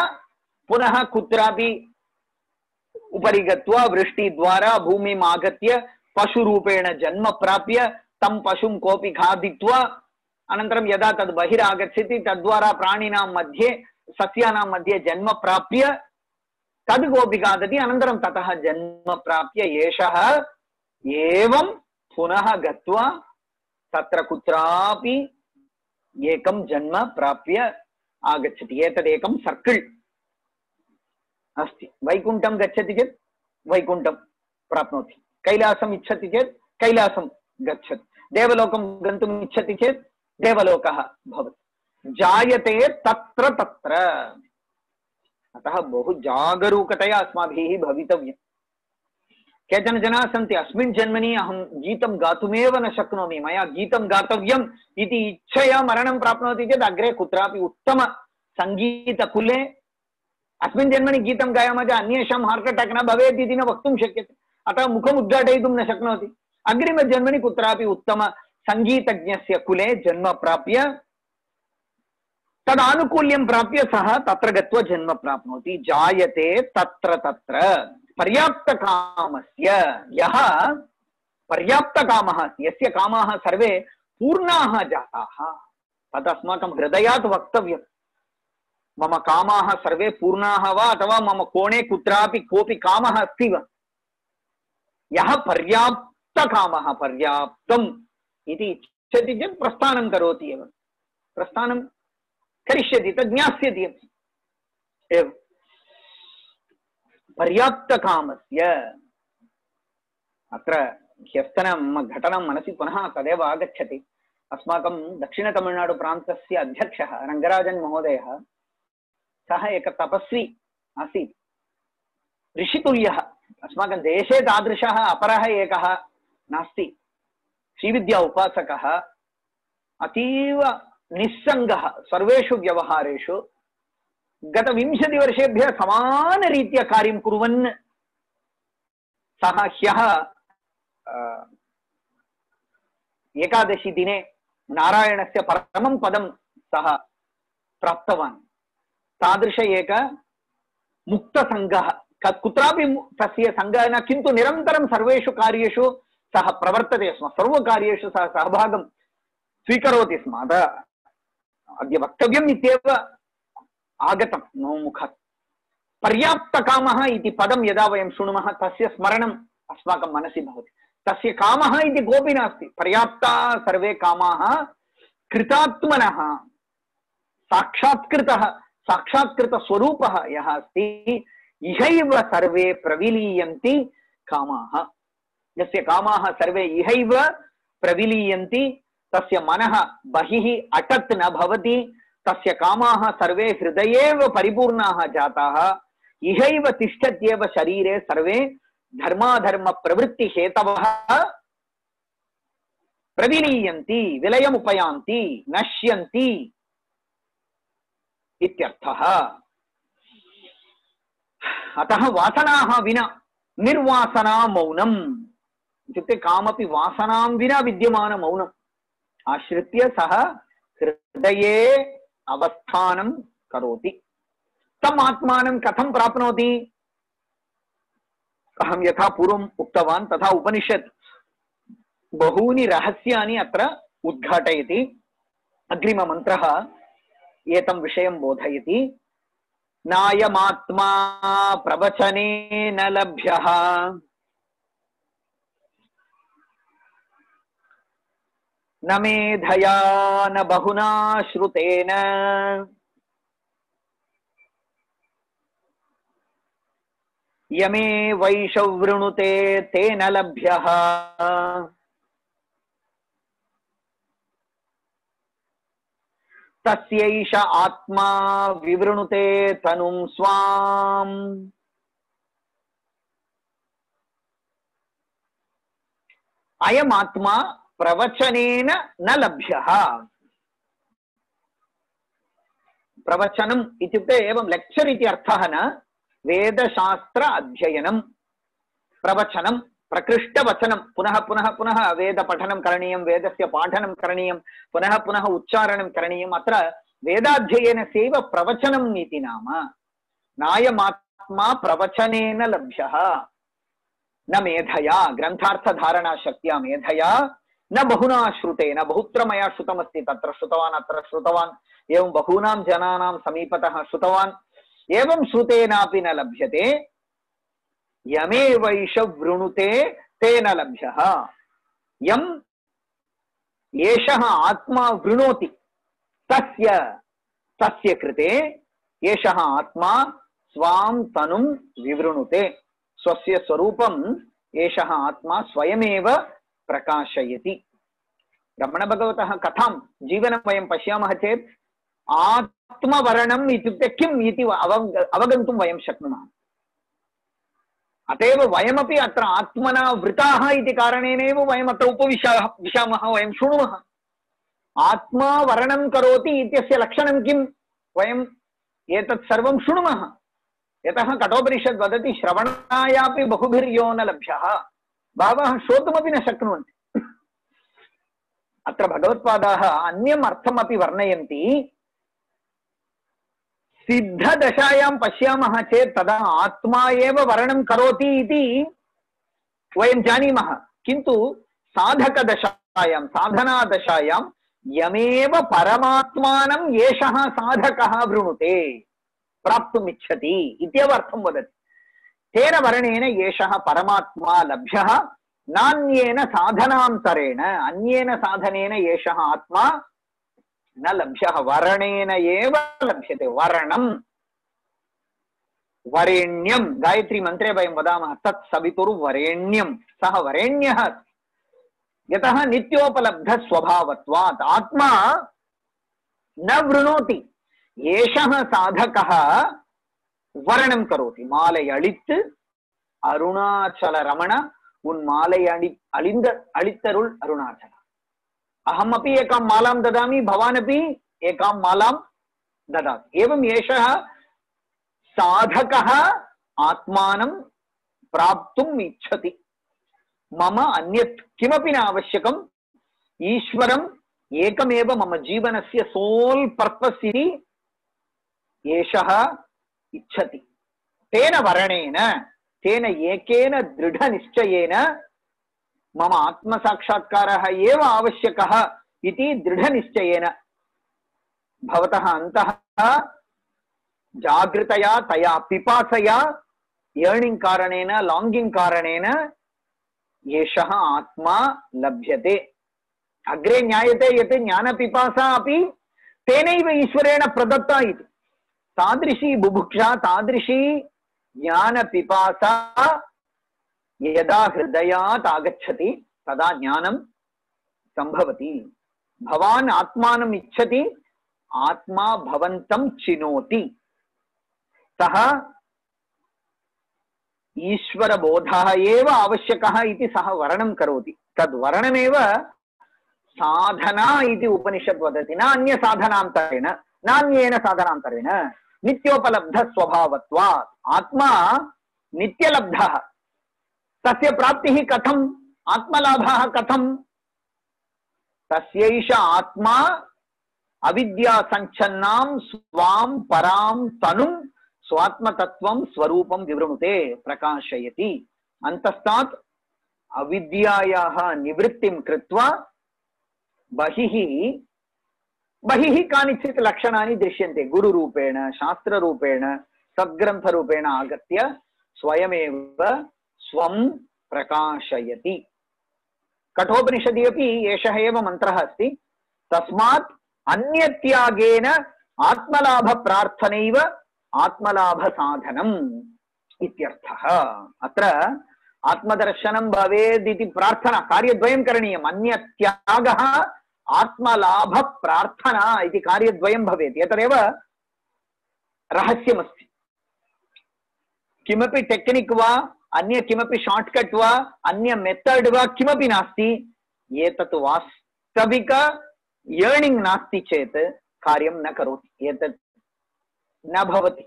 पुनः कुत्रापि उपरि गत्वा वृष्टिद्वारा भूमिम् आगत्य पशुरूपेण जन्म प्राप्य तं पशुं कोऽपि खादित्वा अनन्तरं यदा तद् बहिरागच्छति तद्वारा प्राणिनां मध्ये सस्यानां मध्ये जन्म प्राप्य तद् कोऽपि खादति, अनन्तरं ततः जन्म प्राप्य एषः एवं पुनः गत्वा तत्र कुत्रापि एकं जन्म प्राप्य आगच्छति। एतदेकं सर्किल् अस्ति। वैकुण्ठं गच्छति चेत् वैकुण्ठं प्राप्नोति, कैलासम् इच्छति चेत् कैलासं गच्छति, देवलोकं गन्तुम् इच्छति चेत् देवलोकः भवति। जायते तत्र तत्र। अतः बहु जागरूकतया अस्माभिः भवितव्यम्। केचन जनाः सन्ति, अस्मिन् जन्मनि अहं गीतं गातुमेव न शक्नोमि, मया गीतं गातव्यम् इति इच्छया मरणं प्राप्नोति चेत् अग्रे कुत्रापि उत्तम सङ्गीतकुले अस्मिन् जन्मनि गीतं गायामः चेत् अन्येषां हार्ट् अटाक् न भवेत् इति न वक्तुं शक्यते। अतः मुखम् उद्घाटयितुं न शक्नोति। अग्रिमजन्मनि कुत्रापि उत्तम सङ्गीतज्ञस्य कुले जन्म प्राप्य तदानुकूल्यं प्राप्य सः तत्र गत्वा जन्म प्राप्नोति। जायते तत्र तत्र। पर्याप्तकामस्य, यः पर्याप्तकामः, यस्य कामाः सर्वे पूर्णाः जाताः, तत् अस्माकं हृदयात् वक्तव्यम्। मम कामाः सर्वे पूर्णाः वा अथवा मम कोणे कुत्रापि कोऽपि कामः अस्ति वा? यः पर्याप्तकामः, पर्याप्तम् इति इच्छति चेत् प्रस्थानं करोति एव, प्रस्थानं करिष्यति, तद् ज्ञास्यति एव। पर्याप्तकामस्य। अत्र ह्यस्तनं घटनं मनसि पुनः तदेव आगच्छति। अस्माकं दक्षिणतमिळ्नाडुप्रान्तस्य अध्यक्षः रङ्गराजन् महोदयः, सः एक तपस्वी आसीत्, ऋषितुल्यः। अस्माकं देशे तादृशः अपरः एकः नास्ति। श्रीविद्या उपासकः, अतीव निस्सङ्गः सर्वेषु व्यवहारेषु। गत 20 वर्षेभ्यः समानरीत्या कार्यं कुर्वन् सः ह्यः एकादशी दिने नारायणस्य परमं पदं सः प्राप्तवान्। तादृश एक मुक्तसङ्गः, कुत्रापि तस्य सङ्गः न, किन्तु निरन्तरं सर्वेषु कार्येषु सः प्रवर्तते स्म, सर्वकार्येषु सः सहभागं स्वीकरोति स्म। अद्य वक्तव्यम् इत्येव आगतं मम मुखात्। पर्याप्तकामः इति पदं यदा वयं शृणुमः तस्य स्मरणम् अस्माकं मनसि भवति। तस्य कामः इति कोऽपि नास्ति। पर्याप्ताः सर्वे कामाः कृतात्मनः, साक्षात्कृतः, साक्षात्कृतस्वरूपः यः अस्ति, इहैव सर्वे प्रविलीयन्ति कामाः। यस्य कामाः सर्वे इहैव प्रविलीयन्ति, तस्य मनः बहिः अटत् न भवति, तस्य कामाः सर्वे हृदयेव परिपूर्णाः जाताः, इहैव तिष्ठत्येव शरीरे सर्वे धर्माधर्म प्रवृत्ति हेतवः प्रविलीयन्ति, विलयमुपयान्ति, नश्यन्ति इत्यर्थः। अतः वासनाः विना निर्वासना मौनम् इत्युक्ते कामपि वासनां विना विद्यमान मौनम् आश्रित्य सः हृदये अवस्थानं करोति। तम् आत्मानं कथं प्राप्नोति? अहं यथा पूर्वम् उक्तवान् तथा उपनिषत् बहूनि रहस्यानि अत्र उद्घाटयति। अग्रिममन्त्रः एतं विषयं बोधयति। नायमात्मा प्रवचनेन लभ्यः न मेधया न बहुना श्रुतेन यमे वैषवृणुते तेन लभ्यः तस्यैष आत्मा विवृणुते तनुं स्वाम्। अयमात्मा प्रवचनेन न लभ्यः। प्रवचनम् इत्युक्ते एवं लेक्चर् इति अर्थः न, वेदशास्त्र अध्ययनं प्रवचनं प्रकृष्टवचनं। पुनः पुनः पुनः वेदपठनं करणीयं, वेदस्य पाठनं करणीयं, पुनः पुनः उच्चारणं करणीयम्। अत्र वेदाध्ययनस्यैव प्रवचनम् इति नाम। नायमात्मा प्रवचनेन लभ्यः, न मेधया, ग्रन्थार्थधारणा शक्त्या मेधया, न बहुना श्रुतेन। बहुत्र मया श्रुतमस्ति, तत्र श्रुतवान् अत्र श्रुतवान्, एवं बहूनां जनानां समीपतः श्रुतवान्, एवं श्रुतेनापि न लभ्यते। यमेवैष वृणुते तेन लभ्यः। यम् एषः आत्मा वृणोति तस्य कृते एषः आत्मा स्वां तनुं विवृणुते। स्वस्य स्वरूपम् एषः आत्मा स्वयमेव प्रकाशयति। रमणभगवतः कथां जीवनं वयं पश्यामः चेत् आत्मवर्णम् इत्युक्ते किम् इति अवगन्तुं वयं शक्नुमः। अतएव वयमपि अत्र आत्मना वृताः इति कारणेनैव वयम् अत्र उपविशामः, वयं शृणुमः। आत्मा वर्णं करोति इत्यस्य लक्षणं किम्? वयम् एतत् सर्वं शृणुमः। यतः कठोपनिषद् वदति श्रवणायापि बहुभिर्यो न लभ्यः। बहवः श्रोतुमपि न शक्नुवन्ति। अत्र भगवत्पादाः अन्यम् अर्थमपि वर्णयन्ति। सिद्धदशायां पश्यामः चेत् तदा आत्मा एव वर्णं करोति इति वयं जानीमः, किन्तु साधकदशायां, साधनादशायां यमेव परमात्मानं एषः साधकः वृणुते, प्राप्तुम् इच्छति इत्येव अर्थं वदति। तेन वर्णेन एषः परमात्मा लभ्यः, नान्येन साधनान्तरेण, अन्येन साधनेन एषः आत्मा न लभ्यः, वर्णेन एव लभ्यते। वर्णम् वरेण्यं, गायत्री मन्त्रे वयं वदामः तत् सवितुर्वरेण्यं, सः वरेण्यः, यतः नित्योपलब्ध स्वभावत्वात्। आत्मा न वृणोति, एषः साधकः वर्णं करोति। मालै अळित् अरुणाचल रमण उन् मालै अळित्तरुள் अरुणाचल। अहमपि एकां मालां ददामि, भवानपि एकां मालां ददातु। एवं एषः साधकः आत्मानं प्राप्तुम् इच्छति। मम अन्यत् किमपि न आवश्यकम्, ईश्वरम् एकमेव मम जीवनस्य सोल् पर्पस् इति एषः इच्छति। तेन वर्णेन, तेन एकेन दृढनिश्चयेन मम आत्मसाक्षात्कारः एव आवश्यकः इति दृढनिश्चयेन भवतः अन्तः जागृतया तया पिपासया यर्निंग कारणेन, लॉन्गिंग कारणेन एषः आत्मा लभ्यते। अग्रे ज्ञायते यत् ज्ञानपिपासा अपि तेनैव ईश्वरेण प्रदत्ता इति। तादृशी बुभुक्षा, तादृशी ज्ञानपिपासा यदा हृदयात् आगच्छति तदा ज्ञानं संभवति। भवान् आत्मानम् इच्छति, आत्मा भवन्तं चिनोति। सः ईश्वरबोधः एव आवश्यकः इति सः वर्णनं करोति। तद् वर्णमेव साधना इति उपनिषत् वदति। न अन्य साधनान्तरेण, नान्येन साधनान्तरेण, नित्योपलब्ध स्वभावत्वात्। आत्मा नित्यलब्धः, तस्य प्राप्तिः कथम्, आत्मलाभः कथम्? तस्यैष आत्मा अविद्या संच्छन्नां स्वां परां तनुं स्वात्मतत्वं स्वरूपं विवृणुते प्रकाशयति। अन्तस्तात् अविद्यायाः निवृत्तिं कृत्वा बहिः कानिचित् लक्षणानि दृश्यन्ते। गुरुरूपेण, शास्त्ररूपेण, सद्ग्रन्थरूपेण आगत्य स्वयमेव स्वं प्रकाशयति। कठोपनिषदि अपि एषः एव मन्त्रः अस्ति। तस्मात् अन्यत्यागेन आत्मलाभ प्रार्थनैव आत्मलाभ साधनम् इत्यर्थः। अत्र आत्मदर्शनं भवेदिति प्रार्थना, कार्यद्वयं करणीयम्। अन्यत्यागः आत्मलाभ प्रार्थना इति कार्यद्वयं भवेत्। एतदेव रहस्यमस्ति। किमपि टेक्निक् वा अन्य किमपि शॉर्टकट वा अन्य मेथड वा किमपि नास्ति। एतत् वास्तविक अर्निंग नास्ति चेत् कार्यं न करोति, एतत् न भवति।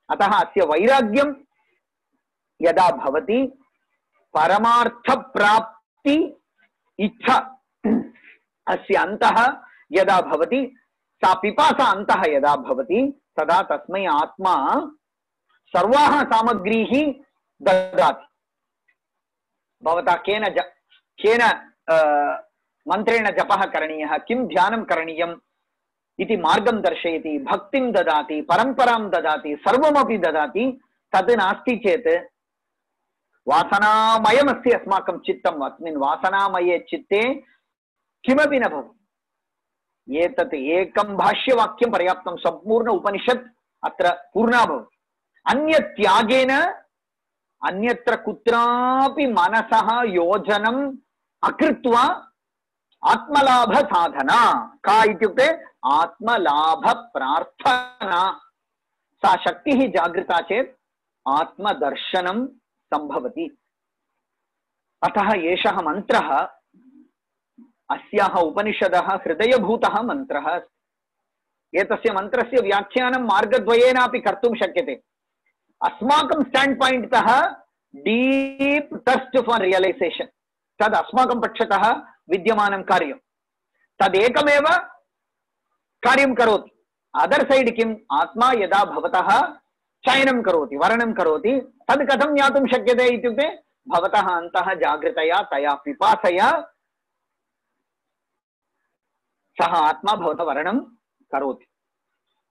अतः अस्य वैराग्यं यदा भवति, परमार्थ प्राप्ति इच्छा अस्य अन्तः यदा भवति, सा पिपासा अन्तः यदा भवति, तदा तस्मै आत्मा सर्वाः सामग्रीः ददाति। भवता केन मन्त्रेण जपः करणीयः, किं ध्यानं करणीयम् इति मार्गं दर्शयति, भक्तिं ददाति, परम्परां ददाति, सर्वमपि ददाति। तद् नास्ति चेत् वासनामयमस्ति अस्माकं चित्तम्। अस्मिन् वासनामये चित्ते किमपि न भवति। एतत् एकं भाष्यवाक्यं पर्याप्तं, सम्पूर्ण उपनिषत् अत्र पूर्णा भवति। अन्यत्यागेन अन्यत्र कुत्रापि मनसः योजनम् अकृत्वा आत्मलाभ साधना का इत्युक्ते आत्मलाभ प्रार्थना। सा शक्तिः जागृता चेत् आत्मदर्शनं संभवति। अतः एषः मन्त्रः अस्याः उपनिषदः हृदयभूतः मन्त्रः अस्ति। एतस्य मन्त्रस्य व्याख्यानं मार्गद्वयेनापि कर्तुं शक्यते। अस्माकं स्टैंड पॉइंट तः डीप थर्स्ट फॉर रियलाइजेशन, तद् अस्माकं पक्षतः विद्यमानं कार्यं, तदेकमेव कार्यं करोति। अदर साइड किम्, आत्मा यदा भवतः चयनं करोति, वर्णनं करोति, तद् कथं ज्ञातुं शक्यते इत्युक्ते भवतः अन्तः जागृतया तया पिपासया सः आत्मा भवतः वर्णनं करोति।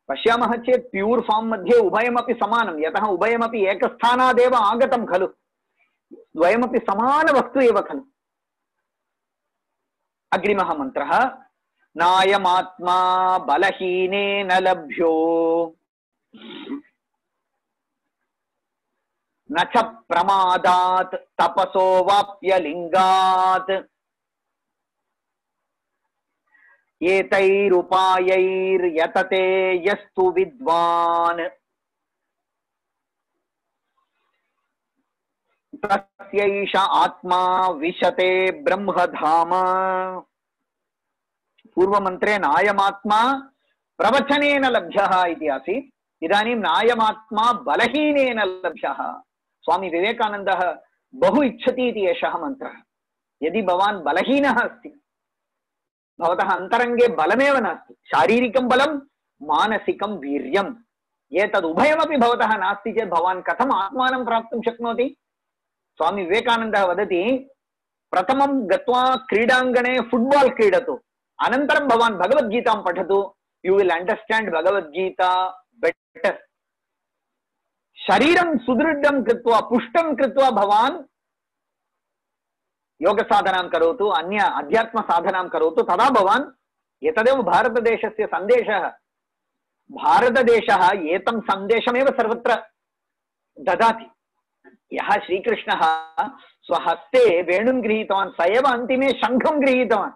पश्यामः चेत् प्यूर् फार्म् मध्ये उभयमपि समानं, यतः उभयमपि एकस्थानादेव आगतं खलु, द्वयमपि समानवस्तु एव खलु। अग्रिमः मन्त्रः, नायमात्मा बलहीनेन लभ्यो न च प्रमादात् तपसो वाप्य लिंगात् एतैरुपायैर्यतते यस्तु विद्वान् तस्यैष आत्मा विशते ब्रह्मधाम। पूर्वमन्त्रे नायमात्मा प्रवचनेन लभ्यः इति आसीत्, इदानीं नायमात्मा बलहीनेन लभ्यः। स्वामी विवेकानन्दः बहु इच्छति इति एषः मन्त्रः। यदि भवान् बलहीनः अस्ति, भवतः अन्तरङ्गे बलमेव नास्ति, शारीरिकं बलं मानसिकं वीर्यम्, एतद् उभयमपि भवतः नास्ति चेत् भवान् कथम् आत्मानं प्राप्तुं शक्नोति? स्वामी विवेकानन्दः वदति, प्रथमं गत्वा क्रीडाङ्गणे फुट्बाल् क्रीडतु, अनन्तरं भवान् भगवद्गीतां पठतु, you will understand Bhagavad Gita better. शरीरं सुदृढं कृत्वा पुष्टं कृत्वा भवान् योग साधनां करोतु, अन्य अध्यात्म साधनां करोतु, तदा भवान्, एतदेव भारतदेशस्य सन्देशः। भारतदेशः एतं सन्देशमेव सर्वत्र ददाति। यः श्रीकृष्णः स्वहस्ते वेणुं गृहीतवान्, स एव अन्तिमे शङ्खं गृहीतवान्,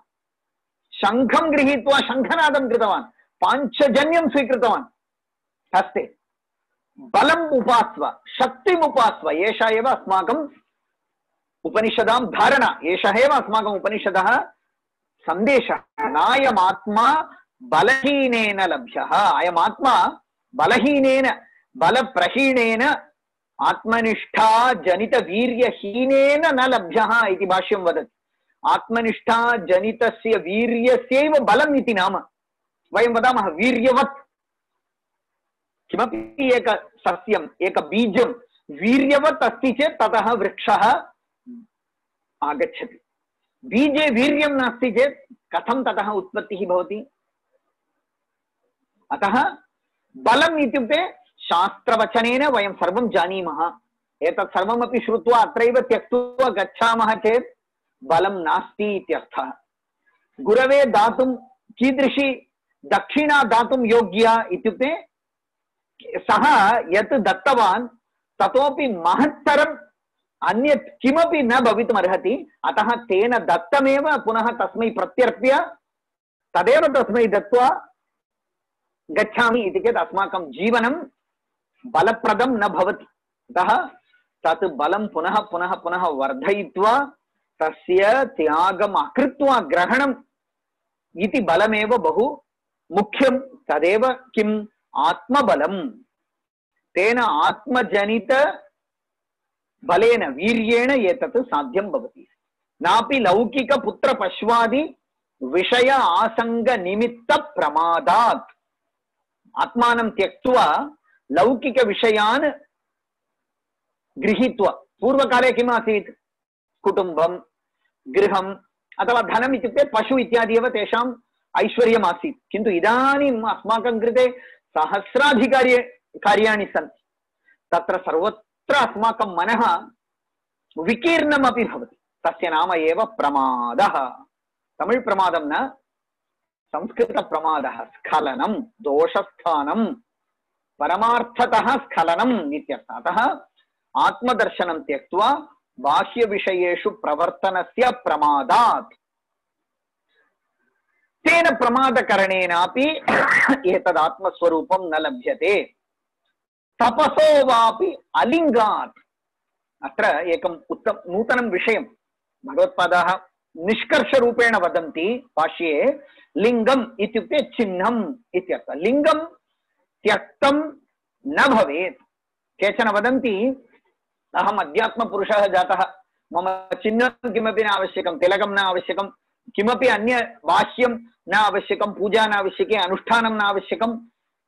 शङ्खं गृहीत्वा शङ्खनादं कृतवान्, पाञ्चजन्यं स्वीकृतवान् हस्ते। बलम् उपास्व, शक्तिम् उपास्व, एषा एव अस्माकम् उपनिषदां धारणा, एषः एव अस्माकम् उपनिषदः सन्देशः। नायमात्मा बलहीनेन लभ्यः। अयमात्मा बलहीनेन, बलप्रहीणेन, आत्मनिष्ठा जनित वीर्यहीनेन न लभ्यः इति भाष्यं वदति। आत्मनिष्ठा जनितस्य वीर्यस्यैव बलम् इति नाम। वयं वदामः वीर्यवत्। किमपि एक सस्यम्, एक बीजं वीर्यवत् अस्ति चेत् ततः वृक्षः आगच्छति। बीजे वीर्यं नास्ति चेत् कथं ततः उत्पत्तिः भवति? अतः बलम् इत्युक्ते शास्त्रवचनेन वयं सर्वं जानीमः। एतत् सर्वमपि श्रुत्वा अत्रैव त्यक्त्वा गच्छामः चेत् बलं नास्ति इत्यर्थः। गुरवे दातुं कीदृशी दक्षिणा दातुं योग्या इत्युक्ते सः यत् दत्तवान् ततोपि महत्तरम् अन्यत् किमपि न भवितुमर्हति। अतः तेन दत्तमेव पुनः तस्मै प्रत्यर्प्य तदेव तस्मै दत्त्वा गच्छामि इति चेत् अस्माकं जीवनं बलप्रदं न भवति। अतः तत् बलं पुनः पुनः पुनः वर्धयित्वा तस्य त्यागम् अकृत्वा ग्रहणम् इति बलमेव बहु मुख्यं। तदेव किम् आत्मबलम्। तेन आत्मजनित बलेन वीर्येण एतत् साध्यं भवति। नापि लौकिक पुत्र पश्वादि विषय आसंग निमित्त प्रमादात्। आत्मानं त्यक्त्वा लौकिक विषयान् गृहीत्वा, पूर्वकाले किम् आसीत्? कुटुम्बं, गृहम् अथवा धनम् इत्युक्ते पशु इत्यादि एव तेषाम् ऐश्वर्यम् आसीत्। किन्तु इदानीम् अस्माकं कृते सहस्राधिकार्याणि सन्ति। तत्र सर्वत्र अस्माकं मनः विकीर्णमपि भवति। तस्य नाम एव प्रमादः। तमिळ् प्रमादं न, संस्कृत प्रमादः। स्खलनं, दोषस्थानं, परमार्थतः स्खलनम् इत्यर्थः। अतः आत्मदर्शनं त्यक्त्वा बाह्य विषयेषु प्रवर्तनस्य प्रमादात्, तेन प्रमादकरणेनापि एतद् आत्मस्वरूपं न लभ्यते। तपसो वापि अलिङ्गात्। अत्र एकम् नूतनं विषयं भगवत्पादाः निष्कर्षरूपेण वदन्ति भाष्ये। लिङ्गम् इत्युक्ते चिह्नम् इत्यर्थः। लिङ्गं त्यक्तं न भवेत्। केचन वदन्ति अहम् अध्यात्मपुरुषः जातः, मम चिह्नं किमपि न आवश्यकं, तिलकं न आवश्यकं, किमपि अन्य भाष्यं न आवश्यकं, पूजा न आवश्यकी, अनुष्ठानं न आवश्यकं,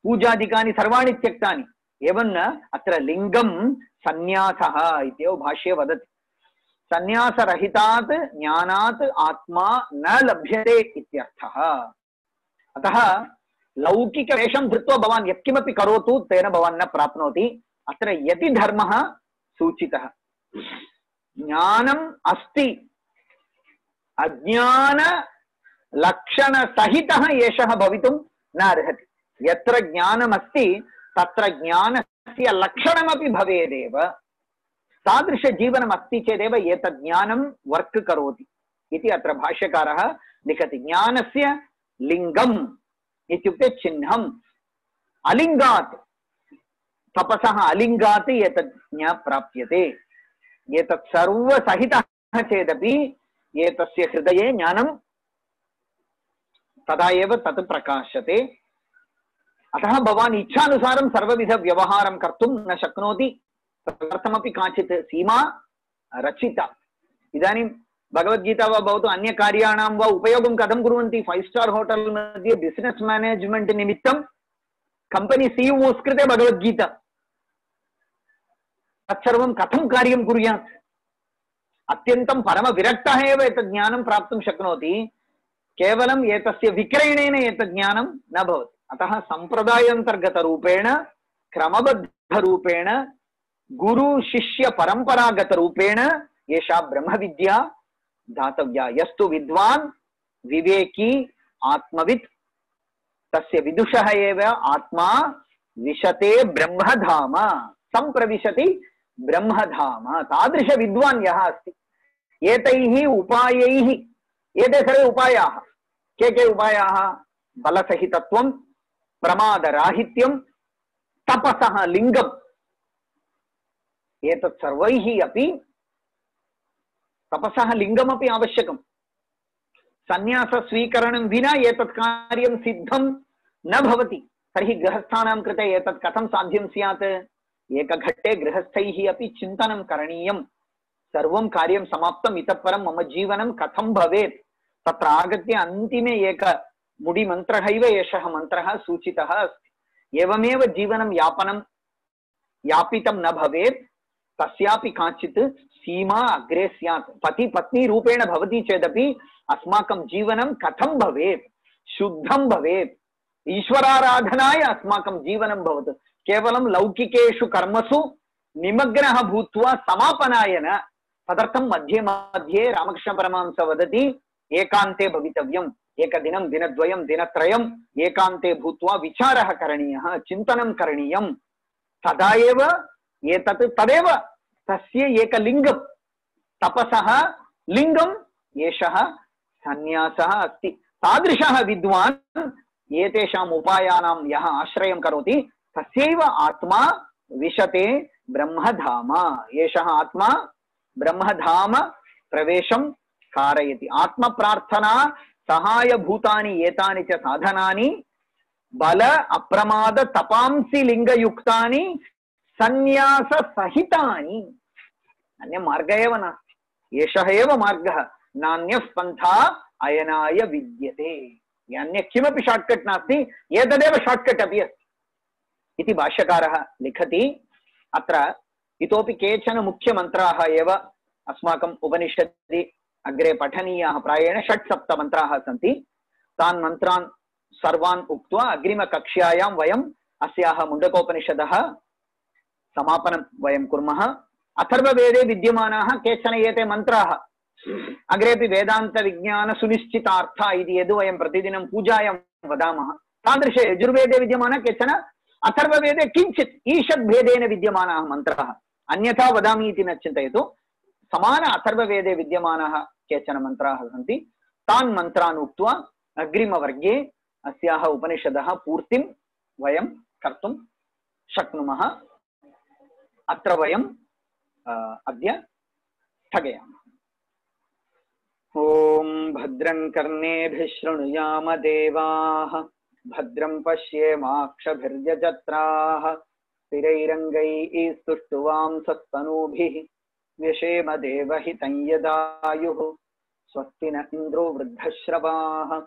पूजादिकानि सर्वाणि त्यक्तानि। एवं न, अत्र लिङ्गं सन्न्यासः इत्येव भाष्ये वदति। सन्न्यासरहितात् ज्ञानात् आत्मा न लभ्यते इत्यर्थः। अतः लौकिकवेषं धृत्वा भवान् यत्किमपि करोतु तेन भवान् न प्राप्नोति। अत्र यति धर्मः सूचितः। ज्ञानम् अस्ति, अज्ञान लक्षण सहितः एषः भवितुं न अर्हति। यत्र ज्ञानमस्ति तत्र ज्ञानस्य लक्षणमपि भवेदेव। तादृश जीवनम् अस्ति चेदेव एतद् ज्ञानं वर्क् करोति इति अत्र भाष्यकारः लिखति। ज्ञानस्य लिङ्गम् इत्युक्ते चिह्नम्। अलिङ्गात्, तपसः अलिङ्गात् एतद् न प्राप्यते। एतत् सर्वसहितः चेदपि एतस्य हृदये ज्ञानं तदा एव तत् प्रकाशते। अतः भवान् इच्छानुसारं सर्वविध व्यवहारं कर्तुं न शक्नोति। तदर्थमपि काचित् सीमा रचिता। इदानीं भगवद्गीता वा भवतु अन्यकार्याणां वा उपयोगं कथं कुर्वन्ति? 5 स्टार् होटेल् मध्ये बिसिनेस् मैनेज्मेंट् निमित्तं कंपनी सीईओस् कृते भगवद्गीता, तत्सर्वं कथं कार्यं कुर्यात्? अत्यन्तं परमविरक्तः एव एतत् ज्ञानं प्राप्तुं शक्नोति। केवलम् एतस्य विक्रयणेन एतत् ज्ञानं न भवति। अतः सम्प्रदायान्तर्गतरूपेण, क्रमबद्धरूपेण, गुरु शिष्य परम्परागतरूपेण एषा ब्रह्मविद्या दातव्या। यस्तु विद्वान् विवेकी आत्मवित् तस्य विदुषः एव आत्मा विशते ब्रह्मधाम, संप्रविशति ब्रह्मधाम। तादृश विद्वान् यः अस्ति, एतैः उपायैः, एते सर्वे उपायाः। के उपायाः? बलसहितत्वं, प्रमादराहित्यं, तपसः लिङ्गम्। एतत् सर्वैः अपि तपसः लिङ्गमपि आवश्यकम्। सन्न्यासस्वीकरणं विना एतत् कार्यं सिद्धं न भवति। तर्हि गृहस्थानां कृते एतत् कथं साध्यं स्यात्? एकघट्टे गृहस्थैः अपि चिन्तनं करणीयं। सर्वं कार्यं समाप्तम्, इतः परं मम जीवनं कथं भवेत्? तत्र आगत्य अन्तिमे एक मुडिमन्त्रः इव एषः मन्त्रः सूचितः अस्ति। एवमेव जीवनं यापितं न भवेत्। तस्यापि काचित् सीमा अग्रे स्यात्। पति पत्नी रूपेण भवति चेदपि अस्माकं जीवनं कथं भवेत्? शुद्धं भवेत्। ईश्वराराधनाय अस्माकं जीवनं भवतु। केवलं लौकिकेषु कर्मसु निमग्नः भूत्वा समापनाय न। तदर्थं मध्ये मध्ये रामकृष्णपरमहंसः वदति, एकान्ते भवितव्यम्। एकदिनं, दिनद्वयं, दिनत्रयम् एकान्ते भूत्वा विचारः करणीयः, चिन्तनं करणीयं। तदा एव एतत् तदेव तस्य एकलिङ्गं। तपसः लिङ्गम् एषः सन्न्यासः अस्ति। तादृशः विद्वान् एतेषाम् उपायानां यः आश्रयं करोति तस्यैव आत्मा विशते ब्रह्मधाम। एषः आत्मा ब्रह्मधाम प्रवेशं कारयति। आत्मप्रार्थना सहायभूतानि एतानि च साधनानि बल अप्रमाद तपांसि लिंगयुक्तानि संन्यास सहितानि। अन्य मार्ग एव नास्ति, एषः एव मार्गः, नान्यः पन्था अयनाय विद्यते। अन्य किमपि शॉर्टकट नास्ति, एतदेव शॉर्टकट अपि अस्ति इति भाष्यकारः लिखति। अत्र इतोपि केचन मुख्यमन्त्राः एव अस्माकम् उपनिषदि अग्रे पठनीयाः। प्रायेण 6-7 मन्त्राः सन्ति। तान् मन्त्रान् सर्वान् उक्त्वा अग्रिमकक्ष्यायां वयम् अस्याः मुण्डकोपनिषदः समापनं वयं कुर्मः। अथर्ववेदे विद्यमानाः केचन एते मन्त्राः अग्रेपि वेदान्तविज्ञान सुनिश्चितार्था इति यद् वयं प्रतिदिनं पूजायां वदामः, तादृशे यजुर्वेदे विद्यमानः केचन अथर्ववेदे किञ्चित् ईषद्भेदेन विद्यमानाः मन्त्राः। अन्यथा वदामि इति न चिन्तयतु, समान अथर्ववेदे विद्यमानाः केचन मन्त्राः सन्ति। तान् मन्त्रान् उक्त्वा अग्रिमवर्गे अस्याः उपनिषदः पूर्तिं वयं कर्तुं शक्नुमः। अत्र वयं अद्य स्थगयामः। ॐ भद्रं कर्णेभिः शृणुयाम देवाः, भद्रं पश्येमाक्षभिर्यजत्राः, स्थिरैरङ्गैः स्तुष्टुवांसस्तनूभिः व्यशेम देवहितं यदायुः। स्वस्ति न इन्द्रो वृद्धश्रवाः,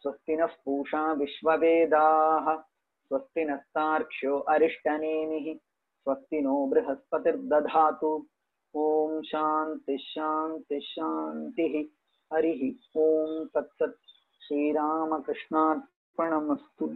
स्वस्ति नः पूषा विश्ववेदाः, स्वस्ति नस्तार्क्ष्यो अरिष्टनेमिः, स्वस्ति नो बृहस्पतिर्दधातु। ओम शांति शांति शांति। हरि ओम तत्सत्। श्रीरामकृष्णार्पणमस्तु।